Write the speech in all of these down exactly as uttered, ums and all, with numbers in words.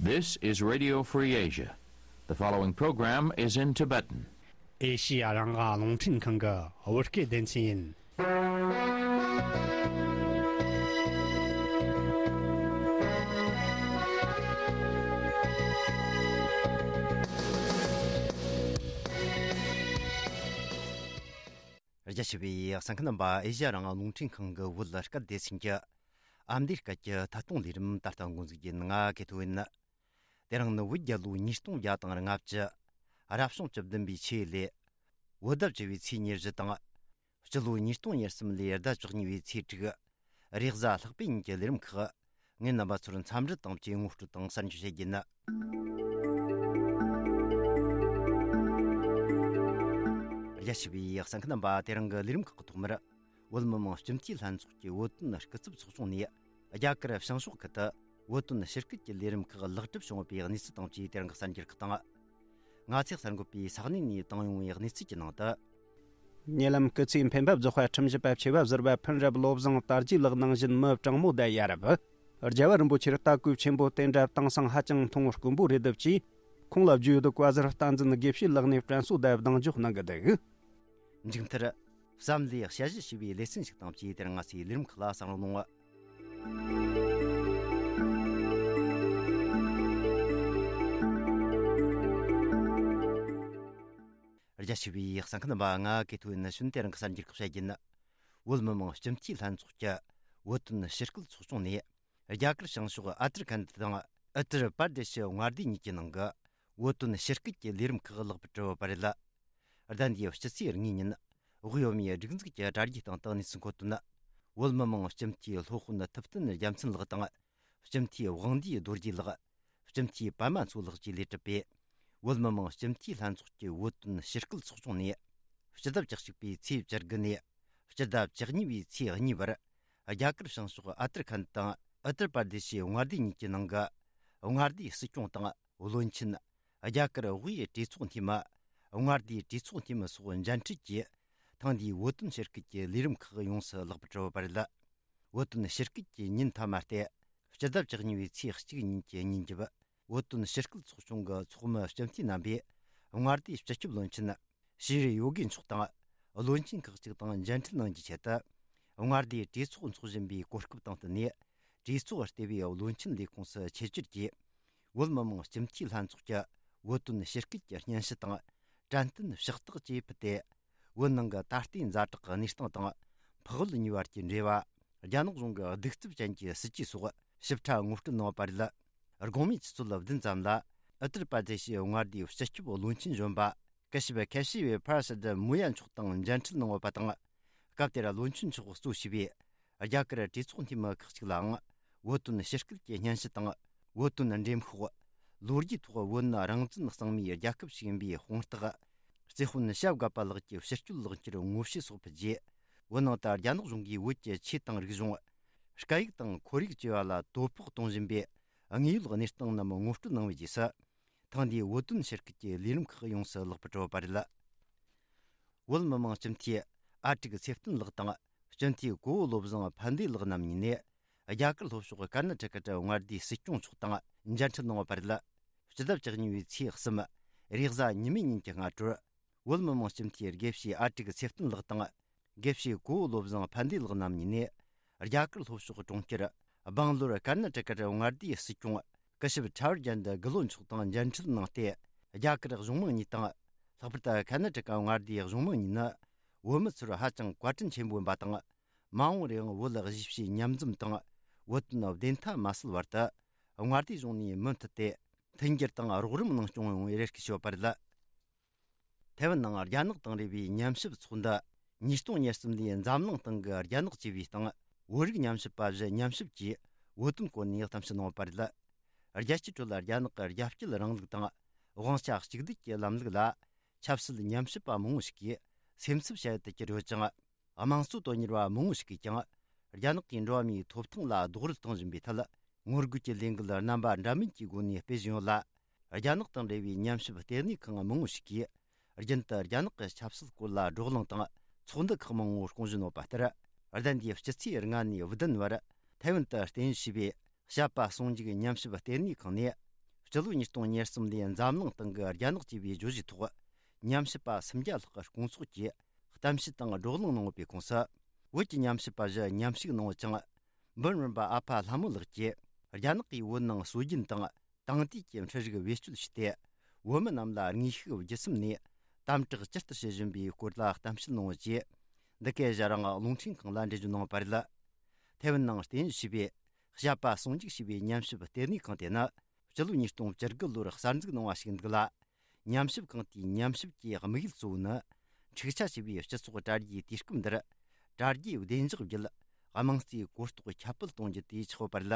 This is Radio Free Asia. The following program is in Tibetan. ཨེ་ཤི་ཡ་རང་དབང་རླུང་འཕྲིན་ཁང་གི་བོད་སྐད་སྡེ་ཚན་ཡིན། རྒྱ་ཆེ་བའི་གསན་མཁན་རྣམ་པ། ཨེ་ཤི་ཡ་རང་དབང་རླུང་འཕྲིན་ཁང་གི་བོད་སྐད་སྡེ་ཚན་གྱི་ཨ་མདོའི་སྐད་ཀྱི་ཐད་གཏོང་ལས་རིམ་ད་ལྟ་འགོ་འཛུགས་རྒྱུ་ཡིན། ང་ཀེ་ཐོ་ཡིན། དེ་རིང་ནི་བོད་རྒྱལ་ལོ་ཉིས་སྟོང་བརྒྱ་དང་ལྔ་བཅུ། རབ་བྱུང་བཅུ་བདུན་པའི་ཆུ་ཡོས་ལོའི་བོད་ཟླ་བཅུ་བའི་ཚེས་ཉེར་བཞི་དང་། སྤྱི་ལོ་ཉིས་སྟོང་ཉེར་གསུམ་ལོའི་ཟླ་བཅུ་གཉིས་པའི་ཚེས་དྲུག། རེས་གཟའ་ལྷག་པའི་ཉིན་གྱི་ལས་རིམ་ཁག་ངས་རྣམ་པ་ཚོར་འཚམས་འདྲི་དང་བཅས་ངོ་སྤྲོད་དང་གསར་འགྱུར་བཤད་རྒྱུ་ཡིན། རྒྱ་ཆེ་བའི་གསན་མཁན་རྣམ་པ། དེ་རིང་གི་ལས་རིམ་ཁག་གི་ཐོག་མར། བོད་མི་མང་སྤྱི་འཐུས་ལྷན་ཚོགས་ཀྱི་བོད་དོན་སྐུ་ཚབ་ཚོགས་ཆུང་ནས་རྒྱ་གར་བྱང་ཕྱོགས་ཁུལ་དུ་བོད་དོན་ཕྱིར་སྐྱོད་ཀྱི་ལས་རིམ་ཁག་ལེགས་གྲུབ་བྱུང་བའི་གནས་ཚུལ་དང་བཅས་དེ་རིང་གི་གསར་འགྱུར་ཁག་དང་། ང་ཚེ་གསར་འགོད་པས་ས་གནས་ནས་བཏང་ཡོང་བའི་གནས་ཚུལ་གྱི་ནང་དུ། ཉེ་ལམ་སྐུ་ཚེའི་འཕེན་པ་རྫོགས་པ་ཁྲིམས་ཞིབ་པ་ཆེ་བ་ཟུར་པ་ཕུན་རབ་བློ་བཟང་དར་རྒྱས་ལགས་ནང་བཞིན་མི་དྲང་མོ་དང་ཡ་རབས། རྒྱལ་བ་རིན་པོ་ཆེར་ལྟ་སྐུལ་ཆེན་པོ་དེ་འདྲ་དེང་སང་ཧ་ཅང་མཐོང་དཀོན་པོ་རེད་འདུག་ཅེས། ཁོང་ལ་བརྗོད་འདུག་པ་ཟུར་བསྟན་འཛིན་དགེ་བཤེས་ལགས་ནས་དྲན་གསོ་དང་གདེང་འཇོག་གནང་གི་འདུག་མཇུག་མཐར། བསམ་བློའི་དཔྱད་གཞི་ཞེས་པའི་ལེ་ཚན་ཞིག་དང་བཅས་དེ་རིང་ང་ཚོའི་ལས་རིམ་ཁག་ལ་གསན་རོགས་གནང་། རྒྱ་ཆེ་བའི་གསན་མཁན་རྣམ་པ། ང་ཀེ་ཐོ་ཡིན། ནི་ཤུན་དེ་རིང་གི་གསར་འགྱུར་ཁག་བཤད་རྒྱུ་ཡིན། བོད་མི་མང་སྤྱི་འཐུས་ལྷན་ཚོགས་ཀྱི་བོད་དོན་ཕྱིར་སྐྱོད་ཚོགས་ཆུང་ནས། རྒྱ་གར་བྱང་ཕྱོགས་ཨ་ཏར་ཁན་དང་ཨུ་ཏར་པར་དེ་ཤི་མངའ་སྡེ་གཉིས་ཀྱི་ནང་གི་བོད་དོན་ཕྱིར་སྐྱོད་ཀྱི་ལས་རིམ་ཁག་ལེགས་པར་གྲུབ་པ་རེད། ཟླ་འདིའི་སྤྱི་ཚེས་གཉིས་ཉིན། དབུས་བོད་མིའི་སྒྲིག་འཛུགས་ཀྱི་དྲ་རྒྱའི་སྟེང་དུ་གནས་ཚུལ་འཁོད་དོན། བོད་མི་མང་སྤྱི་འཐུས་སློབ་དཔོན་ཐུབ་བསྟན་རྒྱལ་མཚན་ལགས་དང་། སྤྱི་འཐུས་དབང་འདུས་རྡོ་རྗེ་ལགས། སྤྱི་འཐུས་པད་མ་མཚོ་ལགས་བཅས་ལས་གྲུབ་པའི་བོད་མི་མང་སྤྱི་འཐུས་ལྷན་ཚོགས་ཀྱི་བོད་དོན་ཕྱིར་སྐྱོད་ཚོགས་ཆུང་ནས། སྤྱི་ཟླ་བཅུ་གཅིག་པའི་ཚེས་བཅུ་དགུ་ནས་སྤྱི་ཟླ་བཅུ་གཉིས་པའི་ཚེས་གཉིས་བར། རྒྱ་གར་བྱང་ཕྱོགས་ཨ་ཏར་ཁན་དང་ཨུ་ཏར་པར་དེ་ཤི་མངའ་སྡེ་གཉིས་ཀྱི་ནང་གི་མངའ་སྡེའི་སྲིད་སྐྱོང་དང་བློན་ཆེན། རྒྱ་གར་དབུས་གྲོས་ཚོགས་འཐུས་མི། མངའ་སྡེའི་གྲོས་ཚོགས་འཐུས་མི་སོགས་མཇལ་འཕྲད་ཀྱིས། ཐེངས་འདིའི་བོད་དོན་ཕྱིར་སྐྱོད་ཀྱི་ལས་རིམ་ཁག་ཡོངས་སུ་ལེགས་པར་གྲུབ་པ་རེད། བོད་དོན་ཕྱིར་སྐྱོད་ཀྱི་ཉིན་མཐའ་མ་སྟེ། སྤྱི་ཟླ་བཅུ་གཉིས་པའི་ཚེས་གཅིག་ཉིན་གྱི་ཉིན་རྒྱབ། བོད་དོན་ཕྱིར་སྐྱོད་ཚོགས་ཆུང་གི་ཚོགས་མི་སྤྱི་འཐུས་རྣམ་པས། མངའ་སྡེའི་སྤྱི་ཁྱབ་བློན་ཆེན་ཤྲི་ཡོ་གི་མཆོག་དང་། བློན་ཆེན་ཁག་ཅིག་དང་མཇལ་འཕྲད་གནང་རྒྱུའི་ཆེད་དུ། མངའ་སྡེའི་གྲོས་ཚོགས་འཚོགས་བཞིན་པའི་གོ་སྐབས་དང་བསྟུན་ནས། གྲོས་ཚོགས་ལྟེ་བའི་བློན་ཆེན་ལས་ཁུངས་སུ་ཆེད་བཅར་གྱིས། བོད་མི་མང་སྤྱི་འཐུས་ལྷན་ཚོགས་ཀྱི་བོད་དོན་ཕྱིར་སྐྱོད་ཀྱི་སྙན་ཞུ་དང་། དྲན་རྟེན་ཕྱག་རྟགས་བཅས་ཕུལ་ཏེ། བོད་ནང་གི་ད་ལྟའི་ཛ་དྲག་གི་གནས་སྟངས་དང་། འཕགས་བོད་གཉིས་བར་གྱི་འབྲེལ་བ། རྒྱ་ནག་གཞུང་གི་གདུག་རྩུབ་ཅན་གྱི་སྲིད་ཇུས་སོགས་ཞིབ་ཕྲ་ངོ་སྤྲོད་གནང་བ་རེད། དགོང་མོའི་ཆུ་ཚོད་བདུན་ཙམ་ལ། ཨུ་ཏར་པར་དེ་ཤི་མངའ་སྡེའི་སྤྱི་ཁྱབ་བློན་ཆེན་གཞོན་པ། སྐུ་ཞབས་ཁེ་ཤི་བེ་ཕར་སི་ཏི་མུ་ཡ་མཆོག་དང་མཇལ་འཕྲད་གནང་བ་དང་། སྐབས་དེར་བློན་ཆེན་མཆོག་གཙོ་བྱས་པའི་རྒྱ་གར་གྲོས་ཚོགས་འཐུས་མི་ཁག་ཅིག་ལའང་། བོད་དོན་ཕྱིར་སྐྱོད་ཀྱི་སྙན་ཞུ་དང་། བོད་དོན་འགྲེམས་ཤོག། ལོ་རྒྱུས་ཐོག་བོད་ནི་རང་བཙན་གཙང་མའི་རྒྱལ་ཁབ་ཞིག་ཡིན་པའི་དཔང་རྟགས། རྩེ་དཔོན་ཤ་བཀའ་པ་ལགས་ཀྱི་ཕྱིར་སྐྱོད་ལག་འཁྱེར་ངོ་བཤུས་སོགས་ཕུལ་རྗེས། བོད་ནང་དུ་རྒྱ་ནག་གཞུང་གིས་བོད་ཀྱི་ཆོས་དང་རིག་གཞུང་། སྐད་ཡིག་དང་ཁོར་ཡུག་བཅས་པ་ལ་དོ་ཕོག་གཏོང་བཞིན་པའི་དངོས་ཡོད་གནས་སྟངས་རྣམས་ངོ་སྤྲོད་གནང་བའི་རྗེས་སུ། ཐེངས་འདིའི་བོད་དོན་ཕྱིར་སྐྱོད་ཀྱི་ལས་རིམ་ཁག་ཡོངས་སུ་ལེགས་པར་གྲུབ་པ་རེད། བོད་མི་མང་སྤྱི་འཐུས་ཨ་ཀྲུག་ཚེ་བརྟན་ལགས་དང་། སྤྱི་འཐུས་གོ་བོ་བློ་བཟང་ཕན་བདེ་ལགས་རྣམ་གཉིས་ནས། རྒྱ་གར་ལྷོ་ཕྱོགས་ཀར་ན་ཊ་ཀ་མངའ་སྡེའི་སྲིད་སྐྱོང་མཆོག་དང་མཇལ་འཕྲད་གནང་བ་རེད། སྤྱི་ཟླ་བཅུ་གཉིས་པའི་ཚེས་གསུམ། རེས་གཟའ་ཉི་མའི་ཉིན་གྱི་སྔ་དྲོར། བོད་མི་མང་སྤྱི་འཐུས་དགེ་བཤེས་ཨ་ཀྲུག་ཚེ་བརྟན་ལགས་དང་། དགེ་བཤེས་གོ་བོ་བློ་བཟང་ཕན་བདེ་ལགས་རྣམ་གཉིས་ནས། རྒྱ་གར་ལྷོ་ཕྱོགས་གྲོང་ཁྱེར་སྦང་ལོར་ཀར་ན་ཊ་ཀར་མངའ་སྡེའི་སྲིད་སྐྱོང་སྐུ་ཞབས་ཁྲ་བར་ཇན་དི་གི་ལོ་མཆོག་དང་མཇལ་འཕྲད་གནང་སྟེ། རྒྱ་གར་གཞུང་མང་གཉིས་དང་། ལྷག་པར་དུ་ཀར་ན་ཊ་ཀ་མངའ་སྡེའི་གཞུང་མང་གཉིས་ནི། བོད་མི་ཚོར་ཧ་ཅང་བཀའ་དྲིན་ཆེན་པོ་ཡིན་པ་དང་། མ་འོངས་རེའང་བོད་གཞིས་བྱེས་མཉམ་འཛོམས་དང་། བོད་དོན་བདེན་མཐའ་མ་བསལ་བར་དུ། མངའ་སྡེའི་གཞུང་ནས་མུ་མཐུད་དེ། མཐུན་འགྱུར་དང་རོགས་རམ་གནང་སྐྱོང་ཡོང་བའི་རེ་སྐུལ་ཞུས་པ་རེད། ཐའེ་ཝན་ནང་རྒྱ་ནག་དང་འབྲེལ་བའི་ཉམས་ཞིབ་ཚོགས་འདུ། ཉིས་སྟོང་ཉེར་གསུམ་ལོའི་འཛམ་གླིང་སྟེང་གི་རྒྱ་ནག་ཅེས་པའི་སྟེང་། བོད་རིགས་ཉམས་ཞིབ་པ་བཞི་མཉམ་ཞིབ་ཀྱིས་བོད་དོན་སྐོར་ནས་གཏམ་བཤད་གནང་བ་རེད། རྒྱལ་སྤྱིའི་ཁྲོད་ལ་རྒྱ་ནག་གི་རྒྱ་སྐྱེད་རིང་ལུགས་དང་། དབང་ཆ་གཅིག་སྡུད་ཀྱི་ལམ་ལུགས་ལ། ཆབ་སྲིད་ཉམས་ཞིབ་པ་མང་བོ་ཞིག་གིས་སེམས་འཚབ་བྱ་ཡུལ་དུ་གྱུར་ཡོད་ཅིང་། དམངས་གཙོ་དོན་གཉེར་བ་མང་བོ་ཞིག་གིས་ཀྱང་། རྒྱ་ནག་གིས་འགྲོ་བ་མིའི་ཐོབ་ཐང་ལ་རྡོག་རོལ་གཏོང་བཞིན་པའི་ཐད། ངོ་རྒོལ་གྱི་ལས་འགུལ་རྣམ་པ་འདྲ་མིན་གྱི་སྒོ་ནས་སྤེལ་བཞིན་ཡོད་ལ། རྒྱ་ནག་དང་འབྲེལ་བའི་ཉམས་ཞིབ་ལྟེ་གནས་ཁང་མང་བོ་ཞིག་གིས། རྒྱུན་དུ་རྒྱ་ནག་གི་ཆབ་སྲིད་སྐོར་ལ་བགྲོ་གླེང་དང་ཚོགས་འདུ་ཁག་མང་བོ་སྐོང་བཞིན་ཡོད་པ་ལྟར། ཟླ་འདིའི་སྤྱི་ཚེས་ལྔ་ནས་བདུན་བར་ཐའེ་ཝན་དུ་རྟེན་གཞི་བྱས་པའི། བཤད་པ་ཟུང་འཇུག་ཉམས་ཞིབ་ལྟེ་གནས་ཁང་ནས། ཕྱི་ལོ་ཉིས་སྟོང་ཉེར་གསུམ་ལོའི་འཛམ་གླིང་སྟེང་གི་རྒྱ་ནག་ཅེས་པའི་བརྗོད་གཞིའི་ཐོག་ཉམས་ཞིབ་པ་སུམ་བརྒྱ་ལྷག་གི་སྐུ་ཚོགས་ཀྱིས་གཏམ་བཤད་དང་བགྲོ་གླེང་གནང་ཡོད་པའི་ཁོངས་སུ། བོད་ཀྱི་ཉམས་ཞིབ་པ་བཞི་མཉམ་ཞུགས་གནང་ཡོད་ཅིང་། འབུམ་རམས་པ་ཨ་ཕ་ལྷ་མོ་ལགས་ཀྱིས་རྒྱ་ནག་གིས་བོད་ནང་སྲོལ་རྒྱུན་དང་དེང་དུས་ཀྱི་འཕྲུལ་རིག་བེད་སྤྱོད་བྱས་ཏེ། བོད་མི་རྣམས་ལ་དངོས་ཤུགས་བརྒྱུད་གསུམ་ནས་དམ་དྲག་ཇི་ལྟར་བྱེད་བཞིན་པའི་སྐོར་ལ་གཏམ་བཤད་གནང་ཡོད་ཅེས། འདི་གའི་ཞལ་རང་རླུང་འཕྲིན་ཁང་ལ་འགྲེལ་བརྗོད་གནང་བ་རེད། ཐའེ་ཝན་ནང་རྟེན་གཞི་བྱས་པའི་བཤད་པ་ཟུང་འཇུག་ཞེས་པའི་ཉམས་ཞིབ་ལྟེ་གནས་ཁང་དེ་ནི། སྤྱི་ལོ་ཉིས་སྟོང་བཅུ་དགུ་ལོར་གསར་འཛུགས་གནང་བ་ཞིག་འདུག་ལ། ཉམས་ཞིབ་ཁང་དེའི་ཉམས་ཞིབ་ཀྱི་དམིགས་ཡུལ་གཙོ་བོ་ནི། འཁྲུག་ཆ་ཆེ་བའི་སྤྱི་ཚོགས་དྲ་རྒྱའི་དུས་སྐབས་འདིར། དྲ་རྒྱའི་བདེ་འཇགས་བརྒྱུད། དམངས་གཙོའི་གོ་རྟོགས་ཁྱབ་སྤེལ་གཏོང་རྒྱུ་དེ་ཆགས་ཡོད་པ་རེད།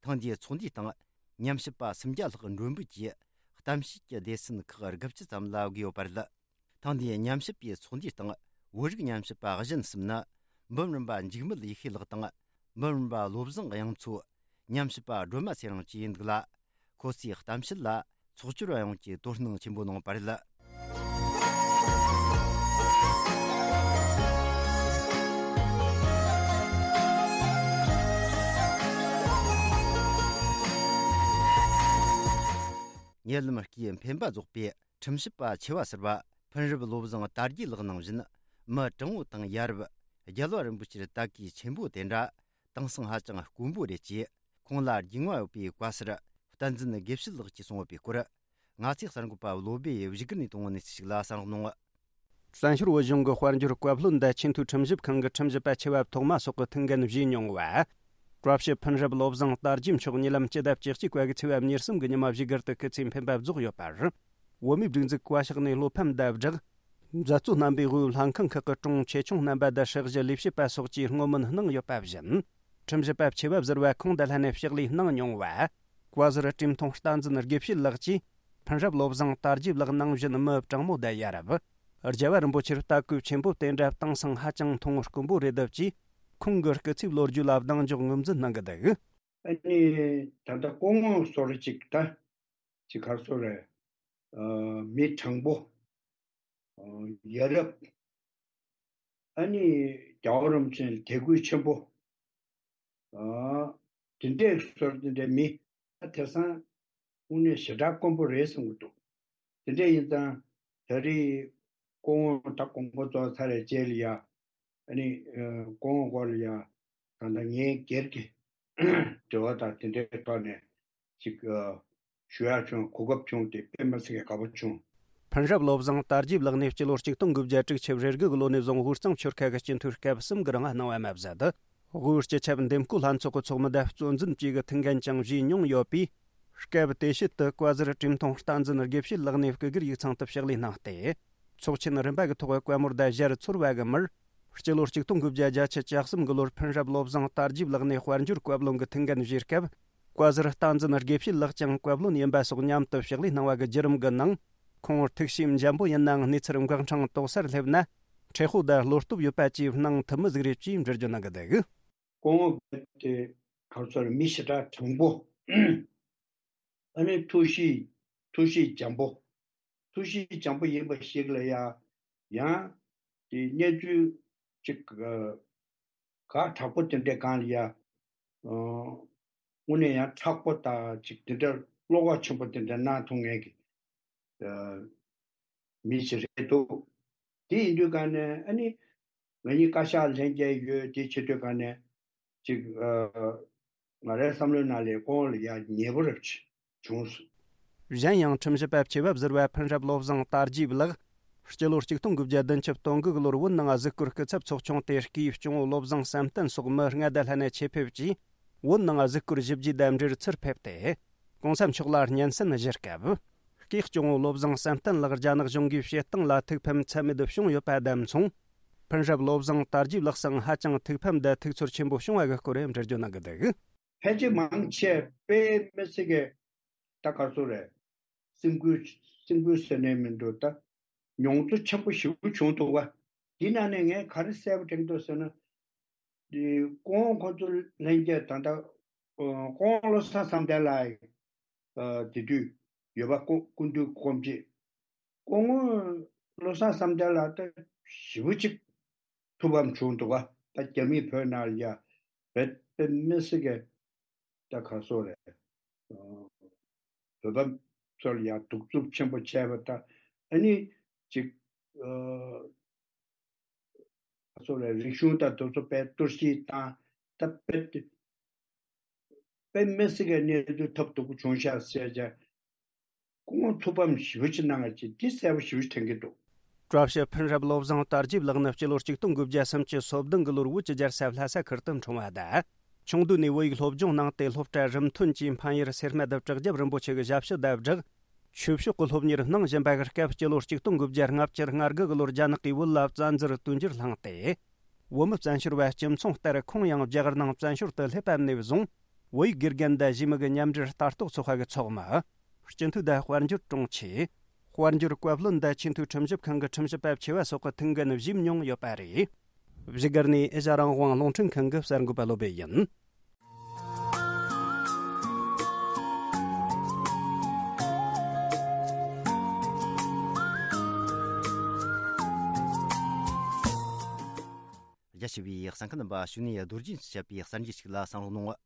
ཐེངས་འདིའི་ཚོགས་འདུའི་སྟེང་། ཉམས་ཞིབ་པ་སུམ་བརྒྱ་ལྷག་མགྲོན་འབོད་ཀྱིས། གཏམ་བཤད་ཀྱི་སྡེ་ཚན་ཁག་དགུ་བཅུ་ཙམ་ལ་དགོས་ཡོད་པ་རེད། ཐེངས་འདིའི་ཉམས་ཞིབ་པའི་ཚོགས་འདུའི་སྟེང་། བོད་རིགས་ཉམས་ཞིབ་པ་གཞན་གསུམ་ནི། འབུམ་རམས་པ་འཇིགས་མེད་ཡེ་ཤེས་ལགས་དང་། འབུམ་རམས་པ་བློ་བཟང་དབྱངས་མཚོ། ཉམས་ཞིབ་པ་སྒྲོལ་མ་ཚེ་རིང་བཅས་ཡིན་འདུག་ལ། ཁོ་ཚོས་གཏམ་བཤད་ལ་ཚོགས་བཅར་བ་ཡོངས་ཀྱིས་དོ་སྣང་ཆེན་པོ་གནང་བ་རེད། ཉེ་ལམ་སྐུའི་འཕེན་པ་རྫོགས་པའི་ཁྲིམས་ཞིབ་པ་ཆེ་བ་ཟུར་པ་ཕུན་རབ་བློ་བཟང་དར་རྒྱས་ལགས་ནང་བཞིན། མི་དྲང་བོ་དང་ཡ་རབས་རྒྱལ་བ་རིན་པོ་ཆེར་ལྟ་གོས་ཆེན་པོ་དེ་འདྲ་དེང་སང་ཧ་ཅང་དཀོན་པོ་རེད་ཅེས། ཁོང་ལ་རྒྱུས་མངའ་ཡོད་པའི་བཀའ་ཟུར་བསྟན་འཛིན་དགེ་བཤེས་ལགས་ཀྱིས་གསུངས་ཡོད་པའི་སྐོར། ང་ཚོའི་གསར་འགོད་པ་བློ་བྷེ་ཡིས་བཞུགས་སྒར་ནས་བཏང་བའི་གནས་ཚུལ་ཞིག་ལ་གསན་རོགས་གནང་། བཙན་བྱོལ་བོད་གཞུང་གི་དཔལ་འབྱོར་བཀའ་བློན་དང་ཆེས་མཐོའི་ཁྲིམས་ཞིབ་ཁང་གི་ཁྲིམས་ཞིབ་པ་ཆེ་བ་ཐོག་མ་སོགས་ཀྱི་ཐུགས་འགན་བཞེས་མྱོང་བ། བཀྲ་ཤིས་ཕུན་རབ་བློ་བཟང་དར་རྒྱས་མཆོག་ཉེ་ལམ་སྤྱི་ཟླ་བཅུ་གཅིག་པ་གི་ཚེས་པ་ཉེར་གསུམ་གྱི་ཉི་མ་བཞུགས་སྒར་དུ་སྐུ་ཚེའི་འཕེན་པ་རྫོགས་ཡོད་པར། བོད་མིའི་སྒྲིག་འཛུགས་བཀའ་ཤག་ནས་བློ་ཕམ་དང་སྦྲགས། མཛད་གཙོ་རྣམ་པས་དབུས་ལྷན་ཁང་ཁག་གི་དྲུང་ཆེ་ཆུང་རྣམ་པ་དང་ཧྲག་བཞི་ལས་བྱེད་པ་སོགས་ཀྱིས་བསྔོ་སྨོན་གནང་ཡོད་པ་བཞིན། ཁྲིམས་ཞིབ་པ་ཆེ་བ་ཟུར་པ་ཁོང་དང་ལྷན་ནས་ཕྱག་ལས་གནང་མྱོང་བ། བཀའ་ཟུར་བཀྲས་མཐོང་བསྟན་འཛིན་དགེ་བཤེས་ལགས་ཀྱིས། ཕུན་རབ་བློ་བཟང་དར་རྒྱས་ལགས་ནང་བཞིན་མི་དྲང་མོ་དང་ཡ་རབས། རྒྱལ་བ་རིན་པོ་ཆེར་ལྟ་གོས་ཆེན་པོ་དེ་འདྲ་དེང་སང་ཧ་ཅང་མཐོང་དཀོན་པོ་རེད་འདུག་ཅེས། ཁོང་གི་སྐུ་ཚེའི་ལོ་རྒྱུས་ལ་གདེང་འཇོག་ངོས་འཛིན་གནང་གི་འདུག། ཨ་ནི་ད་ལྟ་སྐུ་ངོ་ཟུར་གཅིག་ད་ཅིག་ག་རེ་ཟེར་རེད། ཨ། མི་དྲང་པོ། ཨ། ཡ་རབས། ཨ་ནི་རྒྱལ་བ་རིན་པོ་ཆེ་ལ་དད་གུས་ཆེན་པོ། ཨ། དེ་འདྲའི་ཟུར་དེ་འདྲའི་མི། ཨ། དེང་སང་དངོས་གནས་ཞེ་དྲག་དཀོན་པོ་རེད་བསམ་གྱི་འདུག། དེ་འདྲ་ཡིན་ཙང་ད་རེས་སྐུ་ངོ་ད་དགོངས་པ་རྫོགས་ཚར་བའི་རྗེས་ལ་ཡ། ཨ་ནི། ཨ། སྐུ་ངོ་སྐོར་ལ་ཡ། ད་ལྟ་ངའི་སྒེར་གྱི་འབྲེལ་བ་དང་དེ་འདྲའི་ཐོག་ནས་ཅིག། ཨ། ཞུ་ཡག་བྱུང་། གོ་སྐབས་བྱུང་སྟེ་དཔེ་མི་སྲིད་པའི་དགའ་པོ་བྱུང་། ཕུན་རབ་བློ་བཟང་དར་རྒྱས་ལགས་ནས་སྤྱི་ལོ་ཆིག་སྟོང་དགུ་བརྒྱ་དྲུག་ཅུ་རེ་དགུ་གི་ལོ་ནས་བཟུང་དབུས་གཙང་ཆོལ་ཁ་གི་སྤྱི་འཐུས་སྐབས་གསུམ་གྱི་རིང་གནང་བ་མ་ཟད། དབུས་སྤྱི་ཁྱབ་འདེམས་བསྐོ་ལྷན་ཚོགས་ཀྱི་ཚོགས་མི་དང་གཙོ་འཛིན་བཅས་ཀྱི་ཐུགས་འགན་ཀྱང་བཞེས་མྱོང་ཡོད་པས། སྐབས་དེ་ཤུལ་དུ་བཀའ་ཟུར་བཀྲས་མཐོང་བསྟན་འཛིན་དགེ་བཤེས་ལགས་ནས་སྐུ་སྒེར་ཡིག་ཚང་དུ་ཕྱག་ལས་གནང་སྟེ། ཚོགས་ཆེན་རིམ་པ་གི་ཐོག་བཀའ་མོལ་དང་ཞལ་ཚོར་བ་གི་མིར། སྤྱི་ལོ་ཆིག་སྟོང་དགུ་བརྒྱ་བརྒྱད་ཅུ་གྱ་གསུམ་གྱི་ལོར་ཕུན་རབ་བློ་བཟང་དར་རྒྱས་ལགས་ནས་དཔལ་འབྱོར་བཀའ་བློན་གྱི་ཐུགས་འགན་བཞེས་སྐབས། བཀའ་ཟུར་བསྟན་འཛིན་དགེ་བཤེས་ལགས་ཀྱང་བཀའ་བློན་ཡིན་པ་སོགས་མཉམ་དུ་ཕྱག་ལས་གནང་བ་གི་བརྒྱུད་རིམ་གྱི་ནང་། ཁོང་ཐུགས་བྱས་འཇམ་པོ་ཡིན་ནའང་གནས་ཚུལ་འགག་འཕྲང་དོག་སར་སླེབས་ན། མཁྲེགས་པོ་དང་བློ་སྟོབས་ཡོད་པ་བཅས་སྣང་ཐུབ་མི་ཟིག་རེད་ཅེས་འགྲེལ་བརྗོད་གནང་གི་འདུག། སྐུ་ངོ་དེ་ག་རེ་ཟེར། མི་ཞེ་དྲག་དྲང་པོ། ཨ་ནི་ཐུགས་གཤིས། ཐུགས་གཤིས་འཇམ་པོ། ཐུགས་གཤིས་འཇམ་པོ་ཡིན་པ་ཞིག་ལ་ཡ། ཡང་དེ་གནས་ཚུལ་ཅིག། ཨ། ཁག་དྲག་པོ་དེ་འདྲའི་སྒང་ལ་ཡ། ཨ། དངོས་གནས་ཡང་མཁྲེགས་པོ་དང་ཅིག་དེ་འདྲ་བློ་ཁོག་ཆེན་པོ་དེ་འདྲ་གནང་ཐུབ་མཁན་གྱི། ཨ། མི་ཞིག་རེད་འདུག། དེ་ཡིན་དུས་སྒང་ནས་ཨ་ནི། ང་གཉིས་བཀའ་ཤག་ལྷན་རྒྱས་ཡོད་དེ་བྱེད་དུས་སྒང་ནས་ཅིག། ཨ། ང་རའི་བསམ་བློའི་ནང་ལ་སྐུ་ངོ་ལ་ཡ་ཉེ་པོ་རེ་བྱུང་སོང་། གཞན་ཡང་ཁྲིམས་ཞིབ་པ་ཆེ་བབ་ཟུར་པ་ཕུན་རབ་བློ་བཟང་དར་རྒྱས་ལགས། སྤྱི་ལོ་ཆིག་སྟོང་དགུ་བརྒྱ་བདུན་ཅུ་དོན་དགུ་གི་ལོར་བོད་ནང་གཟིགས་སྐོར་སྐུ་ཚབ་ཚོགས་ཆུང་དེ་སྐུའི་སྐྱོང་བུ་བློ་བཟང་བསམ་གཏན་སོགས་མི་ལྔ་དང་ལྷན་ནས་ཆེད་ཕེབས་ཀྱིས། བོད་ནང་གཟིགས་སྐོར་ཞིབ་རྒྱས་དང་འབྲེལ་ཚུར་ཕེབས་ཏེ། གོང་ས་མཆོག་ལ་སྙན་སེང་ཞུ་སྐབས། སྐུའི་སྐྱོང་བུ་བློ་བཟང་བསམ་གཏན་ལགས་རྒྱ་ནག་གཞུང་གིས་བྱེད་སྟངས་ལ་ཐུགས་ཕམ་ཚད་མེད་དུ་བྱུང་ཡོད་པ་དང་མཚུངས། ཕུན་རབ་བློ་བཟང་དར་རྒྱས་ལགས་སང་ཧ་ཅང་ཐུགས་ཕམ་དང་ཐུགས་ཚོར་ཆེན་པོ་བྱུང་བ་གི་སྐོར་འགྲེལ་བརྗོད་གནང་གི་འདུག། ཕལ་ཆེར་མང་ཆེ་དཔེ་མི་སྲིད་ཀྱི། ད་ག་རེ་ཟེར་རེད། སེམས་འགུལ། སེམས་འགུལ་ཟེར་ནས་མི་འདུག། ད་མྱོང་ཚོར་ཆེན་པོ་ཞེ་པོ་བྱུང་འདུག་བ། དེའི་ནང་ནས་ངས་ག་རེ་གསལ་པོ་དྲན་གྱི་འདུག་ཟེར་ན། དེ་སྐུ་ངོ་ཁོང་ཚོ་ལྷན་རྒྱས་ད་ལྟ། ཨ། སྐུ་ངོ་བློ་བཟང་བསམ་གཏན་ལགས། ཨ། དེ་དུས་ཡོད་པ། སྐུ། སྐུ་མདུན་སྐུ་མཆེད། སྐུ་ངོ་བློ་བཟང་བསམ་གཏན་ལགས་ད་ཞེ་པོ་ཅིག་ཐུགས་ཕམ་བྱུང་འདུག་བ། ད་རྒྱ་མིས་བོད་ནང་ལ་ཡ་བེད་པེ་མི་སྲིད་ཀྱི། ད་ག་རེ་ཟེར་རེད། ཨ། བོད་པ་ཚོར་ཡང་གདུག་རྩུབ་ཆེན་པོ་བྱས་པ་དང་། ཨ་ནི་ཅིག་ཨ་ཚོ་ལ་རིག་གཞུང་དང་དེ་ཚོ་དཔེ་གཏོར་བཤིག་བཏང་། ད་དཔེ་དཔེ་མི་སྲིད་ཀྱི་གནས་ཚུལ་ཐབས་སྡུག་པོ་བྱུང་ཤག་ཟེར་ཀྱང་། སྐུ་ངོ་ཐུགས་ཕམ་ཞེ་པོ་ཅིག་གནང་ཡ་ཅིག་འདི་གསལ་པོ་ཞེ་པོ་ཅིག་དྲན་གྱི་འདུག་བཀྲ་ཤིས་ཕུན་རབ་བློ་བཟང་དར་རྒྱས་ལགས་ནི་སྤྱི་ལོ་ཆིག་སྟོང་དགུ་བརྒྱ་སུམ་ཅུ་སོ་བདུན་གྱི་ལོར་བོད་ཀྱི་རྒྱལ་ས་ལྷ་ས་ཁུལ་དུ་འཁྲུངས་པ་དང་། ཆུང་དུས་ནས་བོད་ཡིག་སློབ་སྦྱོང་གནང་སྟེ། སློབ་གྲྭ་རིམ་ཐོན་གྱིས་མཁན་ཡུལ་སེར་སྨད་དུ་བྲག་རྒྱབ་རིན་པོ་ཆེ་གི་ཞབས་ཕྱི་དང་སྦྲགས། ཆོས་ཕྱོགས་ཀྱི་སློབ་གཉེར་གནང་བཞིན་པའི་སྐབས། སྤྱི་ལོ་ཆིག་སྟོང་དགུ་བརྒྱ་ལྔ་བཅུ་ང་དགུ་གི་ལོར་རྒྱ་ནག་གིས་བོད་ལ་བཙན་འཛུལ་བསྟུན་གཞིར་བླངས་ཏེ། བོད་མི་བཙན་བྱོལ་བ་སྤྱི་མཚུངས་ལྟར་ཁོང་ཡང་རྒྱ་གར་ནང་བཙན་བྱོལ་དུ་སླེབས་པ་ནས་བཟུང་། བོད་ཡིག་དགེ་རྒན་དང་གཞས་མི་གི་མཉམ་འབྲེལ་ལྟ་རྟོག་ཚོགས་པ་གི་ཚོགས་མི། སྤྱི་འཐུས་དང་དཔལ་འབྱོར་དྲུང་ཆེ། དཔལ་འབྱོར་བཀའ་བློན་དང་ཆེས་མཐོའི་ཁྲིམས་ཞིབ་ཁང་གི་ཁྲིམས་ཞིབ་པ་ཆེ་བ་སོགས་ཀྱི་ཐུགས་འགན་བཞེས་མྱོང་ཡོད་པ་རེད། བཞུགས་སྒར་ནས་ཨེ་ཤ་རང་དབང་རླུང་འཕྲིན་ཁང་གི་གསར་འགོད་པ་བློ་བྷེ་ཡིན། རྒྱ་ཆེ་བའི་གསན་མཁན་རྣམ་པ། གཞུག་ནས་རྡོ་རྗེས་བྱས་པའི་གསར་འགྱུར་ཞིག་ལ་བསམ་བློ་གནང་།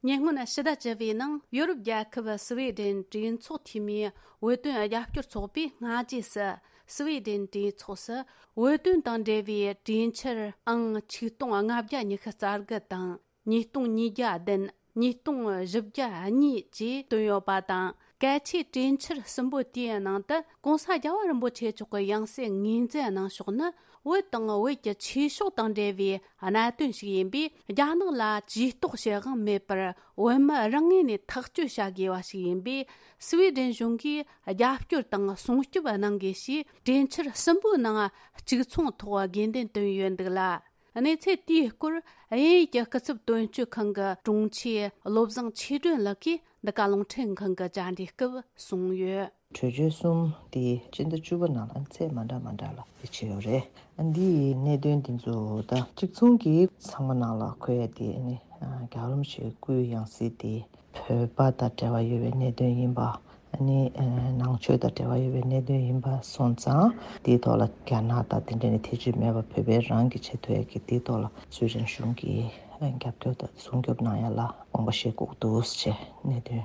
ཉེ་སྔོན་ཕྱི་ཟླ་བཅུ་པའི་ནང་ཡོ་རོབ་རྒྱལ་ཁབ་སི་ཝེ་ཌེན་གྲོས་ཚོགས་འཐུས་མིའི་བོད་དོན་རྒྱབ་སྐྱོར་ཚོགས་པས་སྔ་རྗེས་སུ་སི་ཝེ་ཌེན་གྲོས་ཚོགས་སུ་བོད་དོན་དང་འབྲེལ་བའི་གྲོས་འཆར་ཨང་ཆིག་སྟོང་ལྔ་བརྒྱ་ཉི་ཤུ་རྩ་དགུ་དང་། ཉིས་སྟོང་ཉིས་བརྒྱ་བདུན། ཉིས་སྟོང་བཞི་བརྒྱ་གཉིས་བཅས་བཏོན་ཡོད་པ་དང་། གལ་ཆེའི་གྲོས་འཆར་གསུམ་པོ་དེའི་ནང་དུ་༸གོང་ས་རྒྱལ་བ་རིན་པོ་ཆེ་མཆོག་གི་ཡང་སྲིད་ངོས་འཛིན་གནང་ཕྱོགས་ནི། བོད་དང་བོད་ཀྱི་ཆོས་ཕྱོགས་དང་འབྲེལ་བའི་གནད་དོན་ཞིག་ཡིན་པས། རྒྱ་ནག་ལ་ཇུས་གཏོགས་བྱེད་དབང་མེད་པར་བོད་མི་རང་ངོས་ནས་ཐག་གཅོད་བྱ་དགོས་པ་ཞིག་ཡིན་པས། སི་ཝེ་ཌེན་གཞུང་གིས་རྒྱབ་སྐྱོར་དང་སྲུང་སྐྱོབ་གནང་དགོས་ཞེས་གྲོས་འཆར་གསུམ་པོའི་ནང་གཅིག་མཚུངས་ཐོག་དགོས་འདུན་བཏོན་ཡོད་འདུག་ལ། གནས་ཚུལ་དེའི་སྐོར་དབྱིན་ཡུལ་གྱི་སྐུ་ཚབ་དོན་གཅོད་ཁང་གི་དྲུང་ཆེ་བློ་བཟང་ཆོས་སྒྲོན་ལགས་ཀྱིས་འདི་ག་རླུང་འཕྲིན་ཁང་གི་བཅར་འདྲིའི་སྐབས་གསུངས་ཡོད། གྲོས་ཆོད་གསུམ་དེ་སྤྱི་ཟླ་བཅུ་པ་ནང་ལ་ཚད་མ་འདྲ་མ་འདྲ་ལ་དེ་བྱས་ཡོད་རེད། འདིའི་གནད་དོན་འདི་ཚོ་ད་གཅིག་མཚུངས་ཀྱིས་ཚང་མ་ནང་ལ་འཁོད་ཡ་དེ་ནི་རྒྱལ་བ་རིན་པོ་ཆེའི་སྐུའི་ཡང་སྲིད་དེ་བོད་པ་དང་འབྲེལ་བ་ཡོད་པའི་གནད་དོན་ཡིན་པ། ཨ་ནི་ནང་ཆོས་དང་འབྲེལ་བ་ཡོད་པའི་གནད་དོན་ཡིན་པ་སོང་ཙང་། དེའི་ཐོག་ལ་རྒྱ་ནག་དང་དེ་འདྲ་ནས་ཐེ་བྱུས་མེད་པར་བོད་པའི་རང་གི་ཆེད་དུ་ཡ་གི་དེའི་ཐོག་ལ་སུའེ་ཌེན་གཞུང་གིས་རྒྱབ་སྐྱོར་དང་སྲུང་སྐྱོབ་གནང་ཡ་ལ་དགོངས་པ་བཞེས་དགོས་འདུག་ཅེས་གནད་དོན་